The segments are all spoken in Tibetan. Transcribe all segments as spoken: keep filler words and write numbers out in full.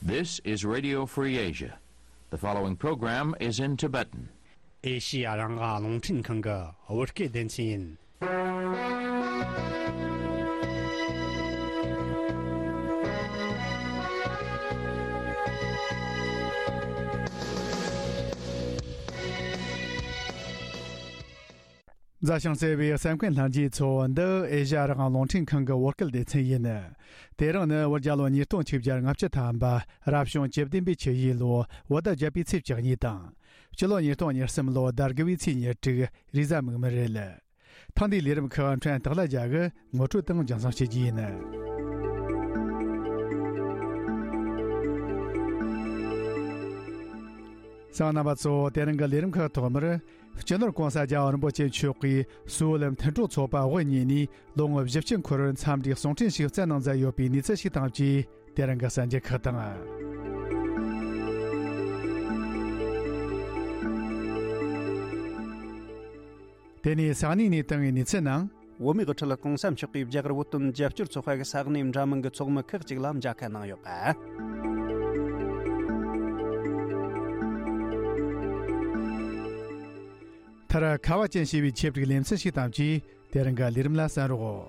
This is Radio Free Asia. The following program is in Tibetan. ཨེ་ཤི་ཡ་རང་དབང་རླུང་འཕྲིན་ཁང་གི་བོད་སྐད་སྡེ་ཚན་ཡིན། མཛའ་ཞིང་བརྩེ་བའི་གསན་མཁན་ལྷན་རྒྱས་ཚོ། འདི་ཨེ་ཤ་ཡ་རང་དབང་རླུང་འཕྲིན་ཁང་གི་བོད་སྐད་སྡེ་ཚན་ཡིན། དེ་རིང་ནི་བོད་རྒྱལ་ལོ་ཉིས་སྟོང་ཆིག་བརྒྱ་ལྔ་བཅུ་ཐམ་པ། རབ་བྱུང་བཅུ་བདུན་པའི་ཆུ་ཡོས་ལོ་བོད་ཟླ་བརྒྱད་པའི་ཚེས་བཅུ་གཉིས་དང་། སྤྱི་ལོ་ཉིས་སྟོང་ཉེར་གསུམ་ལོ་ཟླ་དགུ་བའི་ཚེས་ཉེར་དྲུག་རེས་གཟའ་མིག་དམར་རེད། ཐེངས་འདིའི་ལས་རིམ་ཁག་ཕྲན་སྟག་ལྷ་རྒྱལ་གྱིས་ངོ་སྤྲོད་དང་རྒྱང་སྲིང་བྱེད་རྒྱུ་ཡིན། གསན་མཁན་རྣམ་པ་ཚོ། དེ་རིང་གི་ལས་རིམ་ཁག་ཐོག་མར། སྤྱི་ནོར་༸གོང་ས་༸རྒྱལ་བ་རིན་པོ་ཆེ་མཆོག་གིས་སུའུ་ལི་མཐུན་གྲོགས་ཚོགས་པ་དབུ་བརྙེས་ནས་ལོ་ངོ་བཞི་བཅུ་འཁོར་བར་འཚམས་འདྲིའི་གསུང་འཕྲིན་ཞིག་བསྩལ་གནང་མཛད་ཡོད་པའི་གནས་ཚུལ་ཞིག་དང་བཅས། དེ་རིང་གི་གསར་འགྱུར་ཁག་དང་། དེ་ནས་ས་གནས་ནས་བཏང་བའི་གནས་ཚུལ་ནང་། བོད་མིའི་དབུ་ཁྲིད་༸གོང་ས་མཆོག་གིས་རྒྱ་གར་བོད་དོན་རྒྱབ་སྐྱོར་ཚོགས་པ་གི་ས་གནས་འདྲ་མིན་གྱི་ཚོགས་མི་ཁག་ཅིག་ལ་མཇལ་ཁ་གནང་ཡོད་པ། མཐར། ཁ་བ་ཅན་ཞེས་པའི་ཆེད་སྒྲིག་ལེ་ཚན་ཞིག་དང་བཅས། དེ་རིང་གི་ལས་རིམ་ལ་གསན་རོགས།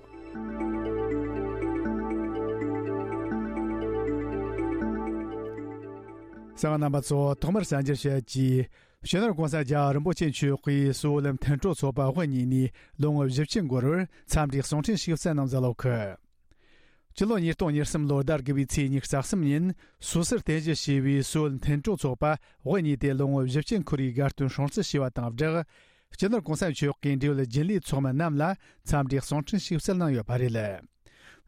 གསན་མཁན་རྣམ་པ་ཚོ། ཐོག་མར་གསར་འགྱུར་བཤད་རྒྱུ། སྤྱི་ནོར་༸གོང་ས་༸རྒྱལ་བ་རིན་པོ་ཆེ་མཆོག་གིས་སུའུ་ལི་མཐུན་གྲོགས་ཚོགས་པ་དབུ་བརྙེས་ནས་ལོ་ངོ་བཞི་བཅུ་འཁོར་བར་འཚམས་འདྲིའི་གསུང་འཕྲིན་ཞིག་བསྩལ་གནང་མཛད་ཡོད་གི། སྤྱི་ལོ་ཉིས་སྟོང་ཉེར་གསུམ་ལོ་ཟླ་དགུ་བའི་ཚེས་ཉི་ཤུ་རྩ་གསུམ་ཉིན་སུད་སིར་རྟེན་གཞི་བྱས་པའི་སུའུ་ལི་མཐུན་གྲོགས་ཚོགས་པ་དབུ་བརྙེས་ཏེ་ལོ་ངོ་བཞི་བཅུ་འཁོར་བའི་དགའ་སྟོན་སྲུང་བརྩི་ཞུས་པ་དང་སྦྲགས། སྤྱི་ནོར་༸གོང་ས་མཆོག་གིས་འབྲེལ་ཡོད་རྒྱུན་ལས་ཚོགས་མི་རྣམས་ལ་འཚམས་འདྲིའི་གསུང་འཕྲིན་ཞིག་བསྩལ་གནང་ཡོད་པ་རེད།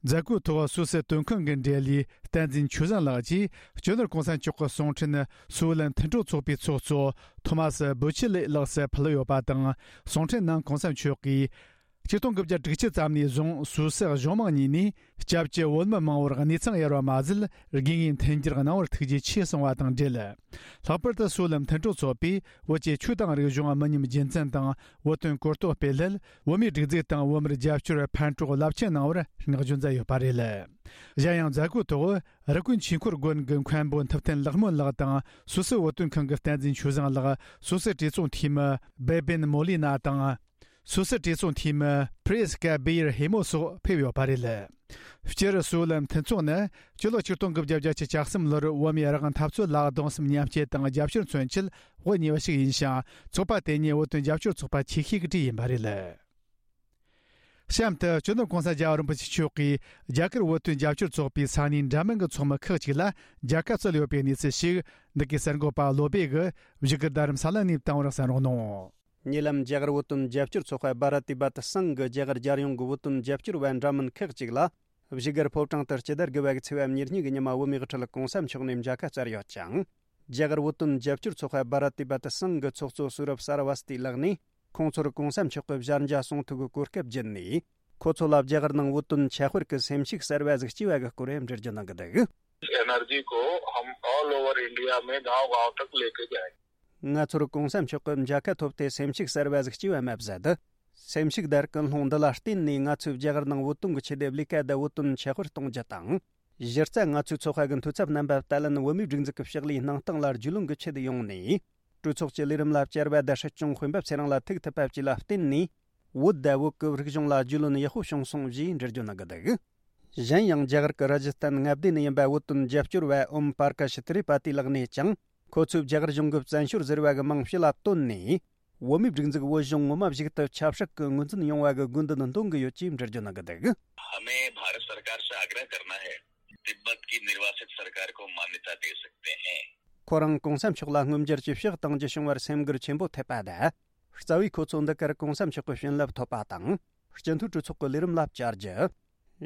མཛད་སྒོའི་ཐོག་སུད་སི་དོན་ཁང་གི་འབྲེལ་ཡོད་བསྟན་འཛིན་ཆོས་བཟང་ལགས་ཀྱིས་སྤྱི་ནོར་༸གོང་ས་མཆོག་གི་གསུང་འཕྲིན་སུའུ་ལན་མཐུན་གྲོགས་ཚོགས་པའི་ཚོགས་གཙོ་ཐོ་མ་སི་བུ་ཆི་ལེ་ལགས་སུ་ཕུལ་ཡོད་པ་དང་། གསུང་འཕྲིན་ནང་༸གོང་ས་མཆོག་གིས། ཆིག་སྟོང་དགུ་བརྒྱ་དྲུག་ཅུ་ཙམ་ནས་བཟུང་སུད་སི་གཞུང་མང་གཉིས་ནས་སྐྱབས་བཅོལ་བོད་མི་མང་བོར་གནས་ཚང་གཡར་བ་མ་ཟད། དགོས་ངེས་མཐུན་འགྱུར་གནང་བར་ཐུགས་རྗེ་ཆེ་གསུངས་པ་དང་འབྲེལ། ལྷག་པར་དུ་སུའུ་ལན་མཐུན་གྲོགས་ཚོགས་པས་བོད་ཀྱི་ཆོས་དང་རིག་གཞུང་མི་ཉམས་རྒྱུན་འཛིན་དང་བོད་དོན་གོ་རྟོགས་སྤེལ་སླད། བོད་མིའི་སྒྲིག་འཛུགས་དང་བོད་མིར་རྒྱབ་སྐྱོར་ཕན་གྲོགས་རླབས་ཆེན་གནང་བར་བསྔགས་བརྗོད་མཛད་ཡོད་པ་རེད། གཞན་ཡང་མཛད་སྒོའི་ཐོག་རི་ཀོན་ཆོས་འཁོར་དགོན་གྱི་མཁན་པོ་ཐུབ་བསྟན་ལེགས་སྨོན་ལགས་དང་། སུད་སི་བོད་དོན་ཁང་གི་བསྟན་འཛིན་ཆོས་བཟང་ལགས། སུད་སི་གྲོས་ཚོགས་འཐུས་མི་སྦེ་བེན་མོ་ལི་ན་དང་། སུད་སི་གྲོས་ཚོགས་འཐུས་མི་ཕི་རེས་ཀ་བེ་ཡར་ཧེ་མོ་སོགས་ཕེབས་ཡོད་པ་རེད། སྤྱིར་སུའུ་ལན་མཐུན་ཚོགས་ནི་སྤྱི་ལོ་ཆིག་སྟོང་དགུ་བརྒྱ་བརྒྱད་ཅུ་གྱ་གསུམ་ལོར་བོད་མིའི་རང་དབང་འཐབ་རྩོད་ལ་གདུང་སེམས་མཉམ་སྐྱེད་དང་རྒྱབ་སྐྱོར་མཚོན་ཆེད་དབུ་བརྙེས་པ་ཞིག་ཡིན་ཞིང་། ཚོགས་པ་དེ་ཉིད་བོད་དོན་རྒྱབ་སྐྱོར་ཚོགས་པ་ཆེ་ཤོས་ཀྱི་གྲས་ཡིན་པ་རེད། གཤམ་དུ་སྤྱི་ནོར་༸གོང་ས་༸རྒྱལ་བ་རིན་པོ་ཆེ་མཆོག་གིས་རྒྱ་གར་བོད་དོན་རྒྱབ་སྐྱོར་ཚོགས་པའི་ས་གནས་འདྲ་མིན་གྱི་ཚོགས་མི་ཁག་ཅིག་ལ་མཇལ་ཁ་སྩལ་ཡོད་པའི་གནས་ཚུལ་ཞིག་འདི་གའི་གསར་འགོད་པ་བློ་སྦེ་གིས་བཞུགས་སྒར་རྡ་རམ་ས་ལ་ནས་བཏང་བར་གསན་རོགས་གནང་། ཉེ་ལམ་རྒྱ་གར་བོད་དོན་རྒྱབ་སྐྱོར་ཚོགས་པ་བྷ་ར་ཏི་བྷ་ཏི་སང་གི་རྒྱ་གར་རྒྱལ་ཡོངས་ཀྱི་བོད་དོན་རྒྱབ་སྐྱོར་བ་འདྲ་མིན་ཁག་ཅིག་ལ། བཞུགས་སྒར་ཕོ་བྲང་དུ་སྤྱི་ཟླ་དགུ་པ་གི་ཚེས་པ་ཉེར་གཉིས་ཀྱི་ཉི་མ་བོད་མིའི་དབུ་ཁྲིད་༸གོང་ས་མཆོག་ནས་མཇལ་ཁ་སྩལ་ཡོད་ཅིང་། རྒྱ་གར་བོད་དོན་རྒྱབ་སྐྱོར་ཚོགས་པ་བྷ་ར་ཏི་བྷ་ཏི་སང་གི་ཚོགས་གཙོ་སུ་རབ་སར་བ་སྟི་ལགས་ནས། ཁོང་ཚོར་༸གོང་ས་མཆོག་གི་ཞལ་མཇལ་གསུང་ཐོས་ཀྱི་གོ་སྐབས་བརྒྱུད་ནས། ཁོ་ཚོ་ལ་རྒྱ་གར་ནང་བོད་དོན་ཁྱད་པར་གྱི་སེམས་ཤུགས་གསར་བ་ཟིག་སྐྱེས་པ་གི་སྐོར་འགྲེལ་བརྗོད་གནང་གི་འདུག། एनर्जी को हम all over India में गांव गांव तक लेके जाएंगे। ང་ཚོར་༸གོང་ས་མཆོག་གི་མཇལ་ཁ་ཐོབ་སྟེ་སེམས་ཤུགས་གསར་བ་ཟིག་སྐྱེས་པ་མ་ཟད། སེམས་ཤུགས་དང་ཀུན་སློང་འདི་ལ་བརྟེན་ནས་ང་ཚོས་རྒྱ་གར་ནང་བོད་དོན་གྱི་ཆེད་དུ་ལས་ཀ་དང་བོད་དོན་ཁྱད་པར་གཏོང་རྒྱུ་དང་། གཞི་རྩ་ང་ཚོའི་ཚོགས་པ་གི་འཐུས་ཚབ་རྣམ་པ་ཏཱ་ལན་བོད་མིའི་སྒྲིག་འཛུགས་ཀྱི་ཕྱག་ལས་གནང་སྟངས་ལ་རྒྱུས་ལོན་གྱི་ཆེད་དུ་ཡོང་ནས། གྲོས་ཚོགས་ཀྱི་ལས་རིམ་ལ་བཅར་བ་དང་སྲིད་སྐྱོང་དཔོན་པོ་ཚེ་རིང་ལ་ཐུག་ཐུབ་པ་བཅས་ལ་བརྟེན་ནས། བོད་དང་བོད་ཀྱི་རིག་གཞུང་ལ་རྒྱུས་ལོན་ཡག་པོ་བྱུང་སོང་ཞེས་འགྲེལ་བརྗོད་གནང་གི་འདུག། གཞན་ཡང་རྒྱ་གར་གྱི་ར་ཇི་སྟན་མངའ་སྡེ་ནས་ཡིན་པ་བོད་དོན་རྒྱབ་སྐྱོར་བ་ཨོམ་པར་ཀ་ཤི་ཐི་རི་པ་ཏི་ལགས་ནས་ཀྱང་། ཁོ་ཚོས་རྒྱ་གར་གཞུང་གི་བཙན་བྱོལ་ཟེར་བ་གི་མིང་ཕྱི་ལ་བཏོན་ནས། བོད་མིའི་སྒྲིག་འཛུགས་བོད་གཞུང་ངོ་མ་ཞིག་ཏུ་ཆབ་སྲིད་ཀྱི་ངོས་འཛིན་ཡོང་བ་གི་དགོས་འདུན་འདོན་གི་ཡོད་ཅེས་འགྲེལ་བརྗོད་གནང་གི་འདུག། हमें भारत सरकार से आग्रह करना है, तिब्बत की निर्वासित सरकार को मान्यता दे सकते हैं। ཁོ་རང་༸གོང་ས་མཆོག་ལ་མངོན་འགྱུར་གྱི་ཕྱག་བཏང་རྒྱུ་བྱུང་བར་སེམས་འགུལ་ཆེན་པོ་ཐེབས་པ་དང་། རྩ་བའི་ཁོ་ཚོ་འདི་གར་༸གོང་ས་མཆོག་གི་བྱིན་རླབས་ཐོབ་པ་དང་། སྤྱི་འཐུས་གྲོས་ཚོགས་ཀྱི་ལས་རིམ་ལ་བཅར་རྒྱུ།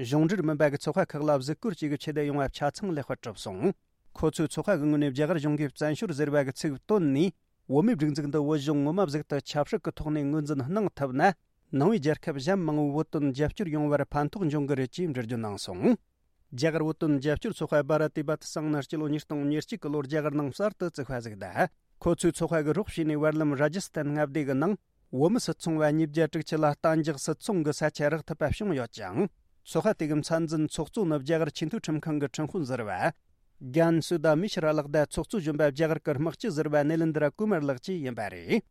གཞུང་འབྲེལ་མིན་པ་གི་ཚོགས་པ་ཁག་ལ་གཟིགས་སྐོར་བཅས་ཀྱི་ཆེད་དུ་ཡོང་བ་ཆ་ཚང་ལེགས་པར་གྲུབ་སོང་། ཁོ་ཚོའི་ཚོགས་པ་གི་ངོས་ནས་རྒྱ་གར་གཞུང་གིས་བཙན་བྱོལ་ཟེར་བ་གི་ཚིག་བཏོན་ནས། བོད་མིའི་སྒྲིག་འཛུགས་འདི་བོད་གཞུང་ངོ་མ་ཟིག་ཏུ་ཆབ་སྲིད་ཀྱི་ཐོག་ནས་ངོས་འཛིན་གནང་ཐུབ་ན། ནང་པའི་རྒྱལ་ཁབ་གཞན་མང་བོའི་བོད་དོན་རྒྱབ་སྐྱོར་ཡོང་བར་ཕན་ཐོགས་འབྱུང་གི་རེད་ཅེས་འགྲེལ་བརྗོད་གནང་སོང་། རྒྱ་གར་བོད་དོན་རྒྱབ་སྐྱོར་ཚོགས་པ་བྷ་ར་ཏི་བྷ་ཏི་སང་ནི་སྤྱི་ལོ་ཉིས་སྟོང་ཉེར་གཅིག་གི་ལོར་རྒྱ་གར་ནང་གསར་དུ་བཙུགས་པ་ཟིག་དང་། ཁོ་ཚོའི་ཚོགས་པ་གི་རོགས་བྱས་ནས་བར་ལམ་ར་ཇི་སྟན་མངའ་སྡེ་གི་ནང་བོད་མི་སུད་ཚོང་བ་ཉིས་བརྒྱ་དྲུག་ཅུ་ལ་གཏན་འཇགས་སུད་ཚོང་གི་ས་ཆ་རག་ཐུབ་པ་བྱུང་ཡོད་ཅིང་། ཚོགས་པ་དེ་གི་མཚན་འཛིན་ཚོགས་གཙོ་ནི་རྒྱ་གར་ཆེས་མཐོའི་ཁྲིམས་ཁང་གི་ཁྲིམས་དཔོན་ཟུར་པ། རྒན་སུ་དཱ་མི་ཤི་ར་ལག་བརྡ་ཚོགས་གཙོ་གཞོན་པ་རྒྱ་གར་གྱི་དམག་སྤྱི་ཟུར་པ་ནེ་ལིན་དྲ་ཀུ་མར་ལགས་ཀྱིས་ཡིན་པ་རེད།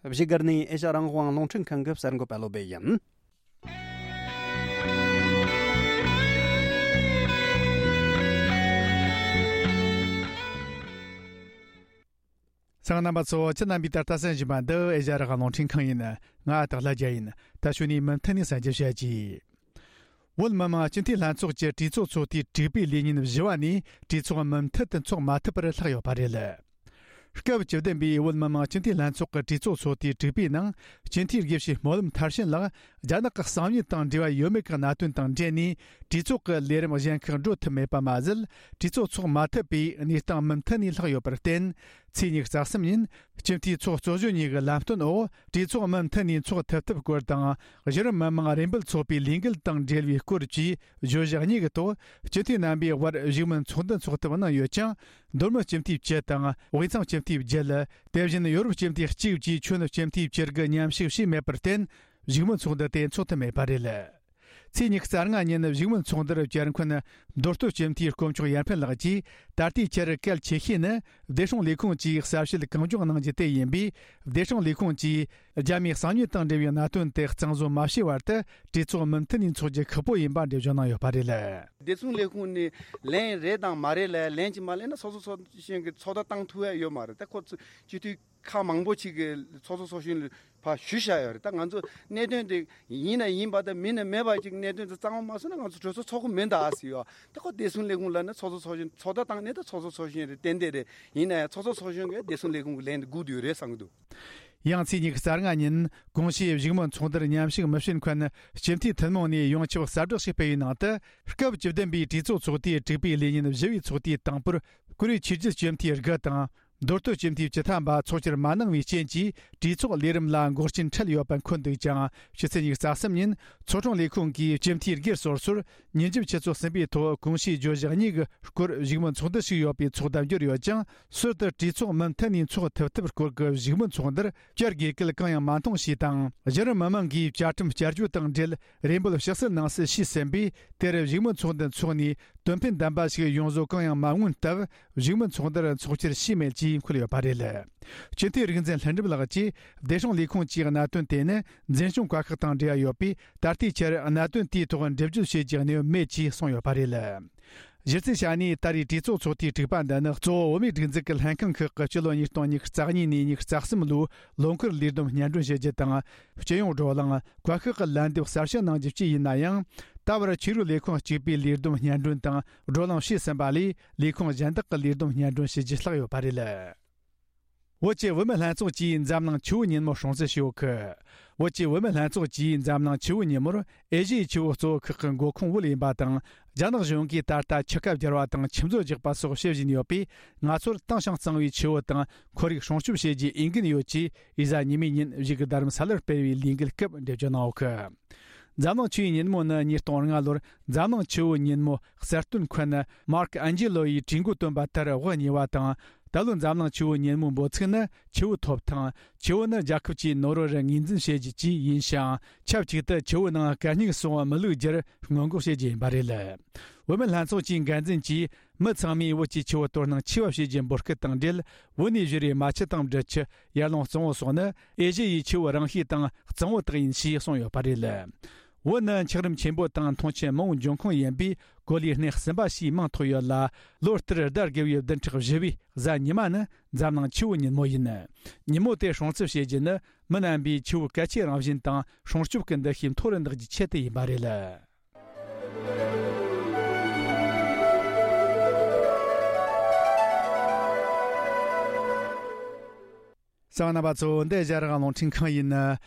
བཞུགས་སྒར་ནས་ཨེ་ཤ་རང་དབང་རླུང་འཕྲིན་ཁང་གི་གསར་འགོད་པ་བློ་བྷེ་ཡིན། གསན་མཁན་རྣམ་པ་ཚོ། ཁྱེད་རྣམ་པས་ད་ལྟ་གསན་བཞིན་པ་འདི་ཨེ་ཤ་རང་དབང་རླུང་འཕྲིན་ཁང་ཡིན། ང་སྟག་ལྷ་རྒྱལ་ཡིན། ད་གཞུག་ནས་མུ་མཐུད་ནས་གསན་རྒྱུ་བྱ་རྒྱུ། བོད་མི་མང་སྤྱི་འཐུས་ལྷན་ཚོགས་ཀྱི་གྲོས་ཚོགས་ཚོགས་དུས་དྲུག་པའི་ལས་ཉིན་བཞི་བ་ནས་གྲོས་ཚོགས་མུ་མཐུད་དུ་འཚོགས་མ་ཐུབ་པར་ལྷག་ཡོད་པ་རེད། སྐབས་བཅུ་བདུན་པའི་བོད་མི་མང་སྤྱི་འཐུས་ལྷན་ཚོགས་ཀྱི་གྲོས་ཚོགས་ཚོགས་དུས་དྲུག་པའི་ནང་སྤྱི་འཐུས་དགེ་བཤེས་སྨོན་ལམ་མཐར་ཕྱིན་ལགས་རྒྱ་ནག་གི་གསང་ཉུལ་དང་འབྲེལ་བ་ཡོད་མེད་ཀྱི་གནད་དོན་དང་འབྲེལ་ནས་གྲོས་ཚོགས་ཀྱི་ལས་རིམ་གཞན་ཁག་འགྲོ་ཐུབ་མེད་པ་མ་ཟད། གྲོས་ཚོགས་ཚོགས་མ་ཐུབ་པའི་གནས་སྟངས་མུ་མཐུད་ནས་ལྷག་ཡོད་པར་བརྟེན། ཚེས་ཉི་ཤུ་རྩ་གསུམ་ཉིན་སྤྱི་འཐུས་ཚོགས་གཙོ་གཞོན་གཉིས་ཀྱི་ལམ་སྟོན་འོག་གྲོས་ཚོགས་མུ་མཐུད་ནས་འཚོགས་ཐུབ་ཐབས་སྐོར་དང་། གཞི་རིམ་མི་མང་རེ་འབོད་ཚོགས་པའི་ལས་འགུལ་དང་འབྲེལ་བའི་སྐོར་བཅས་བརྗོད་གཞི་གཉིས་ཀྱི་ཐོག་སྤྱི་འཐུས་རྣམ་པས་དབར་བཞུགས་མོལ་ཚོགས་འདུ་འཚོགས་ཐབས་གནང་ཡོད་ཀྱང་། མདོ་སྨད་སྤྱི་འཐུས་བཅུ་དང་དབུས་གཙང་སྤྱི་འཐུས་བརྒྱད། དེ་བཞིན་ཡོ་རོབ་སྤྱི་འཐུས་གཅིག་བཅས་ཁྱོན་སྤྱི་འཐུས་བཅུ་དགུ་མཉམ་ཞུགས་བྱས་མེད་པར་བརྟེན། བཞུགས་མོལ་ཚོགས་འདུ་དེ་འཚོགས་ཐུབ་མེད་པ་རེད། ཚེས་ཉི་ཤུ་རྩ་ལྔ་ཉིན་བཞུགས་མོལ་ཚོགས་འདུར་བཅར་མཁན་མདོ་སྟོད་སྤྱི་འཐུས་དཀོན་མཆོག་ཡར་འཕེན་ལགས་ཀྱིས། ད་ལྟའི་ཆར་གལ་ཆེ་ཤོས་ནི་བདེ་སྲུང་ལས་ཁུངས་ཀྱིས་གསལ་བཤད་གང་མགྱོགས་གནང་རྒྱུ་དེ་ཡིན་པས། བདེ་སྲུང་ལས་ཁུངས་ཀྱིས་རྒྱ་མིའི་གསང་ཉུལ་དང་འབྲེལ་བའི་གནད་དོན་དེ་གཙང་བཟོ་མ་བྱས་བར་དུ་གྲོས་ཚོགས་མུ་མཐུད་ནས་འཚོགས་རྒྱུ་ཁག་པོ་ཡིན་པ་འགྲེལ་བརྗོད་གནང་ཡོད་པ་རེད། བདེ་སྲུང་ལས་ཁུངས་ནས་ལན་རེད་དང་མ་རེད་ལ་ལན་གཅིག་མ་ལེན་ན་ཚོགས་གཙོ་ཚོགས་གཞོན་གྱི་ཚོགས་བརྡ་བཏང་ཐུབ་ཡ་ཡོད་མ་རེད། ད་ཁོ་ཚོ་སྤྱི་འཐུས་ཁག་མང་པོ་ཅིག་གིས་ཚོགས་གཙོ་ཚོགས་གཞོན་ལ་ཕར་ཞུས་བཞག་ཡོད་རེད། ད་ང་ཚོ་གནད་དོན་དེ་ཡིན་ན་ཡིན་པ་དང་མིན་ན་མེད་པ་ཅིག་གནད་དོན་དེ་གཙང་མ་མ་བཟོས་ན་ང་ཚོ་གྲོས་ཚོགས་ཚོགས་ཀྱི་མིན་ད་ཟེར་ཡོད། ད་ཁོ་བདེ་སྲུང་ལས་ཁུངས་ལབ་ན་ཚོགས་གཙོ་ཚོགས་གཞོན་ཚོགས་བརྡ་བཏང་ནས་ད་ཚོགས་གཙོ་ཚོགས་གཞོན་རེད། ཏན་ཏན་རེད། ཡིན་ན་ཡང་ཚོགས་གཙོ་ཚོགས་གཞོན་གྱིས་བདེ་སྲུང་ལས་ཁུངས་ཀྱི་ལན་དེ་སྒུག་བསྡད་ཡོད་རེད་བསམ་གྱི་འདུག། ཡང་ཚེས་ཉི་ཤུ་རྩ་ལྔ་ཉིན་གོང་ཞུས་བཞུགས་མོལ་ཚོགས་འདུར་མཉམ་ཞུགས་མི་བྱེད་མཁན་སྤྱི་འཐུས་ཐུན་མོང་ནས་ཡོངས་ཁྱབ་གསལ་བསྒྲགས་ཤིག་སྤེལ་བའི་ནང་དུ། སྐབས་བཅུ་བདུན་པའི་གྲོས་ཚོགས་ཚོགས་དུས་དྲུག་པའི་ལས་ཉིན་བཞི་བའི་ཚོགས་དུས་དང་པོར་བཀུར་འོས་ཆོས་བརྒྱུད་སྤྱི་འཐུས་དགུ་དང་། མདོ་སྟོད་སྤྱི་འཐུས་བཅུ་ཐམ་པ་ཚོགས་བཅར་མ་གནང་བའི་རྐྱེན་གྱིས་གྲོས་ཚོགས་ལས་རིམ་ལ་འགོག་རྐྱེན་འཕྲད་ཡོད་པ་འཁོད་འདུག་ཀྱང་། ཕྱི་ཚེས་ཉི་ཤུ་རྩ་གསུམ་ཉིན་ཚོགས་དྲུང་ལས་ཁུངས་ཀྱིས་སྤྱི་འཐུས་སྒེར་སོ་སོར་ཉིན་རྒྱབ་ཆུ་ཚོད་གསུམ་པའི་ཐོག་གོང་ཞུས་བརྗོད་གཞི་གཉིས་ཀྱི་སྐོར་བཞུགས་མོལ་ཚོགས་འདུ་ཞིག་ཡོད་པའི་ཚོགས་བརྡ་འབྱོར་ཡོད་ཀྱང་། ཟུར་དུ་གྲོས་ཚོགས་མུ་མཐུད་ནས་འཚོགས་ཐུབ་ཐབས་སྐོར་གྱི་བཞུགས་མོལ་ཚོགས་འདུར་བཅར་དགོས་སྐུལ་གང་ཡང་མ་མཐོང་ཞེས་དང་། གཞི་རིམ་མི་མང་གིས་བཅའ་ཁྲིམས་བསྐྱར་བཅོས་དང་འབྲེལ་རེ་འབོད་ཕྱག་བསུ་གནང་སྲིད་ཞུས་ཟིན་པས། དེར་བཞུགས་མོལ་ཚོགས་འདུ་འཚོགས་ནས་དོན་ཕན་ལྡན་པ་ཞིག་ཡོང་བཟོ་གང་ཡང་མ་མངོན་སྟབས། བཞུགས་མོལ་ཚོགས་འདུར་འཚོགས་བཅར་བྱས་མེད་ཅེས་འཁོད་ཡོད་པ་རེད། སྤྱི་འཐུས་རིག་འཛིན་ལྷུན་གྲུབ་ལགས་ཀྱིས། བདེ་སྲུང་ལས་ཁུངས་ཀྱི་གནད་དོན་དེ་ནི་འཛིན་སྐྱོང་བཀའ་ཤག་དང་འབྲེལ་བ་ཡོད་པས། ད་ལྟའི་ཆར་གནད་དོན་དེའི་ཐོག་འགྲེལ་བརྗོད་བྱེད་རྒྱུའི་གནས་བབ་མེད་ཅེས་གསུངས་ཡོད་པ་རེད། གཞི་རྩའི་ཆ་ནས་ད་རེས་གྲོས་ཚོགས་ཚོགས་དུས་དྲུག་པ་འདི་ནི་གཙོ་བོ་བོད་མིའི་སྒྲིག་འཛུགས་ཀྱི་ལྷན་ཁང་ཁག་གི་སྤྱི་ལོ་ཉིས་སྟོང་ཉི་ཤུ་རྩ་གཉིས་ནས་ཉི་ཤུ་རྩ་གསུམ་ལོའི་ལོ་འཁོར་ལས་བསྡོམས་སྙན་སྒྲོན་བྱེད་རྒྱུ་དང་། སྤྱི་ཡོངས་བགྲོ་གླེང་། བཀའ་ཤག་གི་ལན་འདེབས་གསལ་བཤད་གནང་རྒྱུ་བཅས་ཡིན་ན་ཡང་། ད་བར་ཆོས་རིག་ལས་ཁུངས་གཅིག་པའི་ལས་བསྡོམས་སྙན་སྒྲོན་དང་བགྲོ་གླེང་བྱས་ཟིན་པ་ལས། ལས་ཁུངས་གཞན་དག་གི་ལས་བསྡོམས་སྙན་སྒྲོན་བྱེད་རྒྱུ་ལྷག་ཡོད་པ་རེད། བོད་ཀྱི་བུད་མེད་ལྷན་ཚོགས་ཀྱིས་འཛམ་གླིང་ཆུ་བོ་ཉིན་མོ་སྲུང་བརྩི་ཞུ་གི། བོད་ཀྱི་བུད་མེད་ལྷན་ཚོགས་ཀྱིས་འཛམ་གླིང་ཆུ་བོ་ཉིན་མོར་ཨེ་ཤི་ཡའི་ཆུ་བོ་གཙོ་བོ་ཁག་གི་འགོ་ཁུངས་བོད་ཡིན་པ་དང་། རྒྱ་ནག་གཞུང་གིས་ད་ལྟ་ཆུ་ཁ་བསྒྱུར་བ་དང་ཆུ་མཛོད་རྒྱག་པ་སོགས་བྱེད་བཞིན་ཡོད་པས། ང་ཚོར་དྭངས་ཤིང་གཙང་བའི་ཆུ་བོ་དང་ཁོར་ཡུག་སྲུང་སྐྱོབ་བྱེད་རྒྱུའི་འོས་འགན་ཡོད་ཅེས་ཨི་ཟ་ཉི་མའི་ཉིན་བཞུགས་རྡ་རམ་ས་ལར་སྤེལ་བའི་ལས་འགུལ་སྐབས་འགྲེལ་བརྗོད་གནང་ཡོད་གི། འཛམ་གླིང་ཆུ་བོའི་ཉིན་མོ་ནི་ཉིས་སྟོང་ལྔ་ལོར་འཛམ་གླིང་ཆུ་བོའི་ཉིན་མོ་གསར་བཏོན་མཁན་མར་ཁ་ཨན་ཇི་ལོ་ཡིས་གྲོས་འགོ་བཏོན་པ་ལྟར་དབུ་བརྙེས་པ་དང་། ད་ལོའི་འཛམ་གླིང་ཆུ་བོའི་ཉིན་མོའི་འབོད་ཚིག་ནི་ཆུ་བོ་ཐོབ་ཐང་། ཆུ་བོ་ནི་རྒྱལ་ཁབ་ཀྱི་ནོར་བུར་ངོས་འཛིན་བྱེད་རྒྱུ་བཅས་ཡིན་ཞིང་། ཆབས་ཅིག་ཏུ་ཆུ་བོའི་ནང་གད་སྙིགས་སོགས་མི་བླུག་རྒྱུར་སྔོན་འགོག་བྱེད་རྒྱུ་ཡིན་པ་རེད། བུད་མེད་ལྷན་ཚོགས་ཀྱི་འགན་འཛིན་གྱིས། མི་ཚང་མས་བོད་ཀྱི་ཆུ་བོ་དོ་སྣང་ཆེ་བ་བྱེད་རྒྱུའི་འབོད་སྐུལ་དང་འབྲེལ། བོད་ནས་བཞུར་བའི་རྨ་ཆུ་དང་འབྲི་ཆུ། ཡར་ཀླུང་གཙང་བོ་སོགས་ནི་ཨེ་ཤེ་ཡའི་ཆུ་བོ་རིང་ཤོས་དང་གཙང་བོ་དག་ཡིན་ཞེས་གསུངས་ཡོད་པ་རེད། བོད་ནི་འཁྱགས་རོམ་ཆེན་པོ་དང་མཐོང་ཆེན་མང་བོའི་འབྱུང་ཁུངས་ཡིན་པས། གོ་ལའི་སྣེ་གསུམ་པ་ཞེས་མིང་ཐོགས་ཡོད་ལ། ལོ་ལྟར་ཟླ་དགུ་བའི་བདུན་ཕྲག་བཞི་བའི་གཟའ་ཉི་མ་ནི་འཛམ་གླིང་ཆུ་བོ་ཉིན་མོ་ཡིན། ཉིན་མོ་དེ་སྲུང་བརྩི་བྱེད་རྒྱུ་ནི་མི་རྣམ་པའི་ཆུ་བོའི་གལ་ཆེའི་རང་བཞིན་དང་སྲུང་སྐྱོབ་ཀྱི་འདུ་ཤེས་མཐོ་རུ་འདེགས་རྒྱུའི་ཆེད་དུ་ཡིན་པ་རེད། གསན་པ་རྣམ་པ་ཚོ། འདི་ཨེ་ཤ་ཡ་རང་དབང་རླུང་འཕྲིན་ཁང་ཡིན།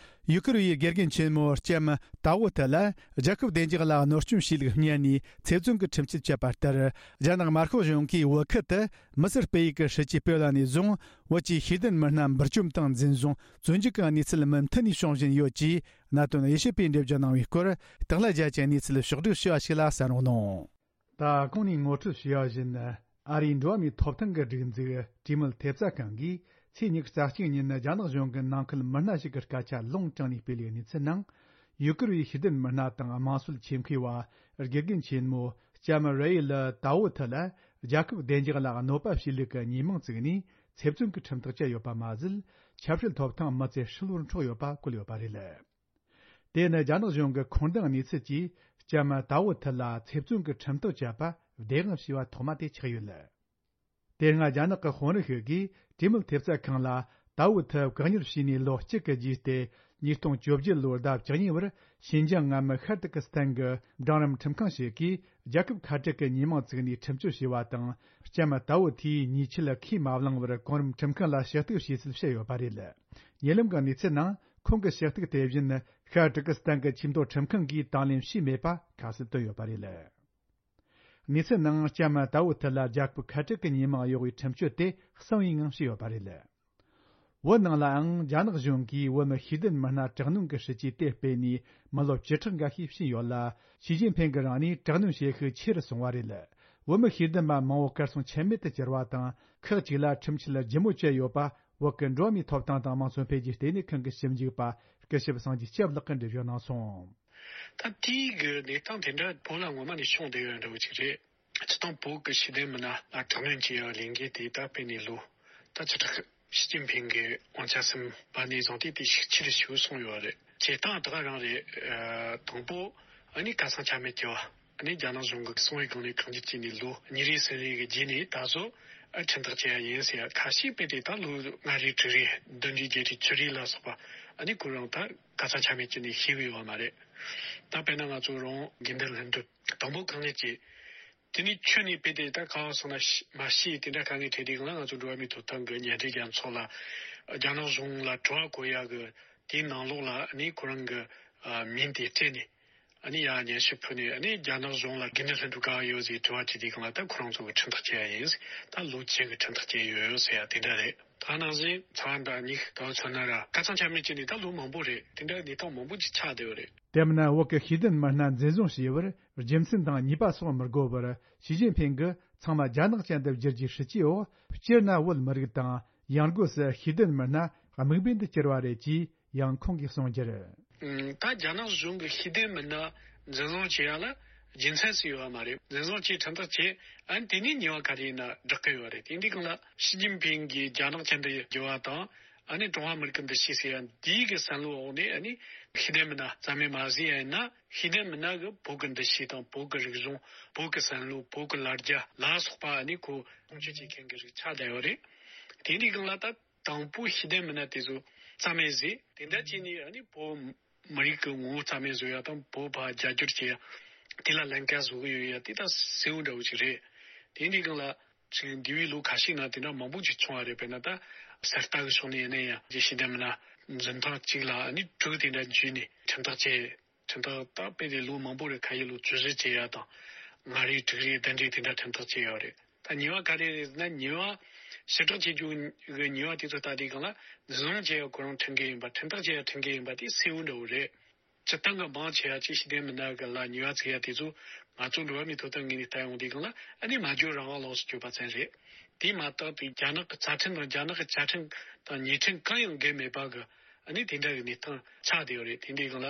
ཡུ་གུར་བའི་དགེ་རྒན་ཆེན་མོ་ལྕམ་ཏའོ་ཐི་ལ་རྒྱལ་ཁབ་བདེ་འཇགས་ལ་གནོད་སྐྱོན་བྱས་ལུགས་སྙན་ནས་ཚེ་བཙོན་གྱི་ཁྲིམས་ཆད་བཅད་པ་ལྟར། རྒྱ་ནག་དམར་ཤོག་གཞུང་གིས་བོད་ཁུལ་དུ་མི་སེར་སྤེལ་ཡུལ་གྱི་སྲིད་ཇུས་སྤེལ་བ་ནས་བཟུང་། བོད་ཀྱི་ཤེས་ལྡན་མི་སྣ་འབུར་བཅོམ་དང་འཛིན་བཟུང་བཙོན་འཇུག་གི་གནས་ཚུལ་མུ་མཐུད་ནས་བྱུང་བཞིན་ཡོད་ཅེས། གནད་དོན་དབྱེ་ཞིབ་པས་འགྲེལ་བརྗོད་གནང་བའི་སྐོར། སྟག་ལྷ་རྒྱལ་གྱིས་གནས་ཚུལ་ཕྱོགས་བསྒྲིགས་ཞུ་བ་ཞིག་ལ་གསན་རོགས་གནང་། ད་གོང་ནས་ངོ་སྤྲོད་ཞུས་པ་བཞིན། ཨ་རིའི་འགྲོ་བ་མིའི་ཐོབ་ཐང་གི་སྒྲིག་འཛུགས་གྲོས་མོལ་ཐེབས་རྩ་ཁང་གིས་ཚེས་ཉི་ཤུ་རྩ་གཅིག་ཉིན་རྒྱ་ནག་གཞུང་གི་ནང་ཁུལ་མི་སྣ་ཞིག་གི་སྐད་ཆ་ལུང་དྲངས་ནས་སྤེལ་བའི་གནས་ཚུལ་ནང་། ཡུ་གུར་བའི་ཤེས་ལྡན་མི་སྣ་དང་དམངས་སྲོལ་ཆེད་མཁས་པ་དགེ་རྒན་ཆེན་མོ་ལྕམ་རེ་ཡི་ལི་ཏའོ་ཐི་ལ་ རྒྱལ་ཁབ་བདེ་འཇགས་ལ་གནོད་པ་བྱེད་ལུགས་ཀྱི་ཉེས་མིང་བཙུགས་ནས་ཚེ་བཙོན་གྱི་ཁྲིམས་ཐག་བཅད་ཡོད་པ་མ་ཟད། ཆབ་སྲིད་ཐོབ་ཐང་མི་ཚེ་ཧྲིལ་བོར་འཕྲོག་ཡོད་པ་བཀོད་ཡོད་པ་རེད། དེ་ནི་རྒྱ་ནག་གཞུང་གི་ཁོང་འདང་གནས་ཚུལ་གྱིས་ལྕམ་ཏའོ་ཐི་ལ་ཚེ་བཙོན་གྱི་ཁྲིམས་ཐག་བཅད་པ་བདེན་དཔང་བྱས་པ་ཐོག་མ་དེ་ཆགས་ཡོད། དེ་སྔ་རྒྱ་ནག་གི་དཔོན་རིགས་ཤིག་གིས་གྲོས་མོལ་ཐེབས་རྩ་ཁང་ལ་ཏའོ་ཐི་བཀག་ཉར་བྱས་ནས་ལོ་གཅིག་གི་རྗེས་ཏེ། ཉིས་སྟོང་བཅོ་བརྒྱད་ལོའི་ཟླ་བཅུ་གཉིས་པར་ཤིན་ཅང་མངའ་མི་ཤར་ཏུར་ཀི་སི་ཐན་གྱི་འབྲིང་རིམ་ཁྲིམས་ཁང་ཞིག་གིས་རྒྱལ་ཁབ་ཁ་བྲལ་གྱི་ཉེས་མིང་བཙུགས་ནས་ཁྲིམས་གཅོད་བྱས་པ་དང་། ལྕམ་ཏའོ་ཐིའི་ཉེས་ཆད་ཁས་མ་བླངས་པར་གོང་རིམ་ཁྲིམས་ཁང་ལ་ཞུ་གཏུག་བྱས་ཚུལ་བཤད་ཡོད་པ་རེད། ཉེ་ལམ་གྱི་གནས་ཚུལ་ནང་ཁོང་གི་ཞུ་གཏུག་དེ་བཞིན་ཤར་ཏུར་ཀི་སི་ཐན་གྱི་ཆེས་མཐོའི་ཁྲིམས་ཁང་གིས་དང་ལེན་བྱས་མེད་པ་ཁ་གསལ་བཏོན་ཡོད་པ་རེད། གནས་ཚུལ་ནང་ལྕམ་ཏའོ་ཐི་ལ་རྒྱལ་ཁབ་ཁ་བྲལ་གྱི་ཉེས་མིང་གཡོག་པའི་ཁྲིམས་གཅོད་དེ་གསང་བའི་ངང་བྱས་ཡོད་པ་རེད། བོད་ནང་ལའང་རྒྱ་ནག་གཞུང་གིས་བོད་མི་ཤེས་ལྡན་མི་སྣ་དྲག་གནོན་གྱི་སྲིད་ཇུས་དེ་སྤེལ་ནས་མི་ལོ་བཅུ་ཕྲག་འགའ་ཤས་ཕྱིན་ཡོད་ལ། ཞི་ཅིན་ཕིང་གིས་རང་ནས་དྲག་གནོན་བྱེད་ཤུགས་ཆེ་རུ་སོང་བ་རེད། བོད་མི་ཤེས་ལྡན་པ་མང་བོ་གར་སོང་ཆ་མེད་དུ་གྱུར་བ་དང་། ཁག་ཅིག་ལ་ཁྲིམས་ཆད་ལྗིད་མོ་བཅད་ཡོད་པ། བོད་ཀྱི་འགྲོ་བ་མིའི་ཐོབ་ཐང་དང་དམངས་གཙོ་འཕེལ་རྒྱས་ལྟེ་གནས་ཁང་གི་ཞིབ་འཇུག་པ་སྐུ་ཞབས་སངས་རྒྱས་སྐྱབས་ལགས་ཀྱིས་འགྲེལ་བརྗོད་གནང་སོང་། ད་དེའི་གི་གནས་སྟངས་དེ་འདྲ་བོད་ལ་ངོ་མ་ནས་བྱུང་བསྡད་ཡོད་འདྲ་བོ་ཅིག་རེད། སྤྱིར་བཏང་བོད་ཀྱི་ཤེས་ལྡན་མི་སྣ་ལ་དྲག་གནོན་བྱེད་ཡག་ལས་འགུལ་དེ་ད་སྤེལ་ནས་ལོ་ད་བཅུ་ཕྲག་ཞི་ཅིན་ཕིང་གི་དབང་ཆ་ཟིན་པ་ནས་བཟུང་སྟེ་དེ་ཤུགས་ཆེ་རུ་ཞིག་སོང་ཡོད་རེད། བྱེད་སྟངས་ད་ག་རང་རེད། ཨ། དང་པོ་ཨ་ནི་ཁ་སང་ཆ་མེད་ཀྱི་བ། ཨ་ནི་རྒྱ་ནག་གཞུང་གི་གསང་བའི་སྒང་ནས་བཀག་ཉར་བྱས་ནས་ལོ་གཉིས་རེ་གསུམ་རེ་གི་རྗེས་ནས་ད་གཟོད་ཨ་ཁྲིམས་ཐག་བཅད་ཡ་ཡིན་ཟེར་ཡ། ཁ་ཤས་དཔེ་དེ་ད་ལོ་ལྔ་རེ་དྲུག་རེ་བདུན་རེ་བརྒྱད་རེ་བཅུ་རེ་ལ་སོགས་པ་ཨ་ནི་ཁོ་རང་ད་ཁ་སང་ཆ་མེད་བྱས་ནས་ཤེས་གི་ཡོད་མ་རེད། ད་དཔེར་ན་ང་ཚོ་རང་དགེ་འདུན་ལྷུན་གྲུབ་དང་པོ་བཀག་ཉར་བྱས། དེ་ནས་ཁྱོན་ནས་དཔེ་དེ་ད་ག་བ་སོང་ན་ཤི་མ་ཤི་དེ་འདྲ་དཀའ་ངལ་འཕྲད་དུས་སྒང་ལ་ང་ཚོ་འགྲོ་བ་མིའི་ཐོབ་ཐང་གི་མཉམ་འབྲེལ་རྒྱལ་ཚོགས་ལ་རྒྱ་ནག་གཞུང་ལ་དྲི་བ་བཀོད་ཡ་གི་དེའི་ནང་ལོགས་ལ་ཨ་ནི་ཁོ་རང་གི་ཨ་མིང་དེ་སྤྲད་ནས། ཨ་ནི་ཡར་སྙན་ཞུ་ཕུལ་ནས། ཨ་ནི་རྒྱ་ནག་གཞུང་ལ་དགེ་འདུན་ལྷུན་གྲུབ་ག་པར་ཡོད་ཟེར་དྲི་བ་དྲིས་དུས་སྒང་ལ་ད་ཁོ་རང་ཚོ་གི་ཁྲིམས་ཐག་བཅད་ཡ་ཡིན། ད་ལོ་བཅུ་གི་ཁྲིམས་ཐག་བཅད་ཡོད་ཟེར་ཡ་དེ་འདྲ་རེད། ད་ནང་བཞིན་ཚ་བ་འདྲ་གཉིས་ད་མཚོན་ན་ར་ཁ་སང་ཆ་མེད་བྱས་ནས་ད་ལོ་མང་པོ་རེད། དེ་འདྲ་གནས་སྟངས་མང་པོ་ཅིག་ཆགས་བསྡད་ཡོད་རེད། དེ་མིན་ན་བོད་ཀྱི་ཤེས་ལྡན་མི་སྣ་འཛིན་བཟུང་བྱས་པར་རྒྱུ་མཚན་དང་ཉེས་པ་སོགས་མི་དགོས་པར་ཞི་ཅིན་ཕིང་གིས་ཚང་མ་རྒྱ་ནག་ཅན་དུ་བསྒྱུར་རྒྱུའི་སྲིད་ཇུས་འོག་སྤྱིར་ན་བོད་མི་རིགས་དང་ཡང་སྒོས་སུ་ཤེས་ལྡན་མི་སྣ་དམིགས་འབེན་དུ་གྱུར་བ་རེད་ཅེས། ཡང་ཁོང་གིས་གསུངས་རྒྱུར། ད་རྒྱ་ནག་གཞུང་གི་ཤེས་ལྡན་མི་སྣ་འཛིན་བཟུང་བྱེད་ཡ་ལ་རྒྱུ་མཚན་ཞིག་ཡོད་པ་མ་རེད། འཛིན་བཟུང་བྱས་ཁྲིམས་ཐག་བཅད། ཨ་ནི་དེ་ནས་ཉེས་པ་ག་རེ་ཡིན་ན་བསྒྲག་གི་ཡོད་རེད། དེ་འདི་གང་ལ་ཞི་ཅིན་ཕིང་གིས་རྒྱ་ནག་ཅན་དུ་བསྒྱུར་བ་དང་། ཨ་ནི་ཀྲུང་ཧྭ་མི་རིགས་ཀྱི་འདུ་ཤེས་ཟེར་ཡ་འདིའི་གི་བསམ་བློའི་འོག་ནས། ཨ་ནི་ཤེས་ལྡན་མི་སྣ་རྩ་མེད་མ་བཟོས་ཡ་ཡིན་ན། ཤེས་ལྡན་མི་སྣ་གི་བོད་ཀྱི་འདུ་ཤེས་དང་བོད་ཀྱི་རིག་གཞུང་། བོད་ཀྱི་བསམ་བློ། བོད་ཀྱི་ལ་རྒྱ་ལ་སོགས་པ་ཨ་ནི་ཁོ་སྲུང་སྐྱོབ་བྱེད་མཁན་གྱི་རིགས་ཆགས་བསྡད་ཡོད་རེད། དེ་འདི་གང་ལ་ད། དང་པོ་ཤེས་ལྡན་མི་སྣ་དེ་ཚོ་རྩ་མེད་བཟོས། དེ་འདྲ་བྱས་ནས་ཨ་ནི་བོད་མི་རིགས་ཀྱི་ངོ་བོ་རྩ་མེད་བཟོ་ཡ་དང་། བོད་པ་རྒྱ་སྒྱུར་བྱེད་ཡ། དེ་ལ་ལན་ཁ་བཟོ་གི་ཡོད་ཡ་དེ་ད་གསལ་བོ་འདྲ་བོ་ཞིག་རེད། དེ་འདི་སྒང་ལ་ཅིག་འདས་པའི་ལོ་ཁ་ཤས་ནང་དེ་འདྲ་མང་པོ་ཅིག་བྱུང་བ་རེད། དཔེར་ན་ད་གསར་རྟ་གི་ཕྱོགས་ནས་ཡིན་ན་ཡང་ཤེས་ལྡན་མི་སྣ་འཛིན་ཐེངས་གཅིག་ལ་ཨ་ནི་དྲུག་དེ་འདྲ་འཇུས་ནས་ཁྲིམས་ཐག་བཅད། ཁྲིམས་ཐག་ད་དཔེ་དེ་ལོ་མང་པོ་རེད། ཁ་ཤས་ལོ་བཅུ་བཞི་བྱེད་ཡ་དང་། ལྔ་རེ་དྲུག་རེ་བདུན་རེ་དེ་འདྲ་ཁྲིམས་ཐག་བཅད་ཡོད་རེད། ད་ཉེས་པ་ག་རེ་རེད་ཟེར་ན། ཉེས་པ་ཕྱིར་བསྒྲགས་བྱེད་རྒྱུ་གི་ཉེས་པ་དེ་ཚོ་ལྟ་དུས་སྒང་ལ་འཛིན་བཟུང་བྱེད་ཡ་ཁོ་རང་ཁྲིམས་འགལ་ཡིན་པ། ཁྲིམས་ཐག་བཅད་ཡ་ཁྲིམས་འགལ་ཡིན་པ་དེ་གསལ་བོ་འདྲ་བོ་རེད། སྤྱིར་བཏང་གི་མང་ཆེ་བ་ཅིག་ཤེས་ལྡན་མི་སྣ་གི་ལ་ཉེས་པ་བཙུགས་ཡ་དེ་ཚོ་ང་ཚོ་འགྲོ་བ་མིའི་ཐོབ་ཐང་ངོས་ནས་ལྟ་ཡོང་དུས་སྒང་ལ་ཨ་ནི་སྨྲ་བརྗོད་རང་དབང་ལོགས་སུ་གྱུར་པ་ཙམ་རེད། དེ་མ་གཏོགས་དེ་རྒྱ་ནག་གི་རྩ་ཁྲིམས་དང་རྒྱ་ནག་གི་བཅའ་ཁྲིམས་དང་ཉེས་ཁྲིམས་གང་ཡང་འགལ་མེད་པ་གི་ཨ་ནི་དེ་འདྲ་གི་གནས་སྟངས་ཆགས་བསྡད་ཡོད་རེད། དེ་འདྲའི་སྒང་ལ་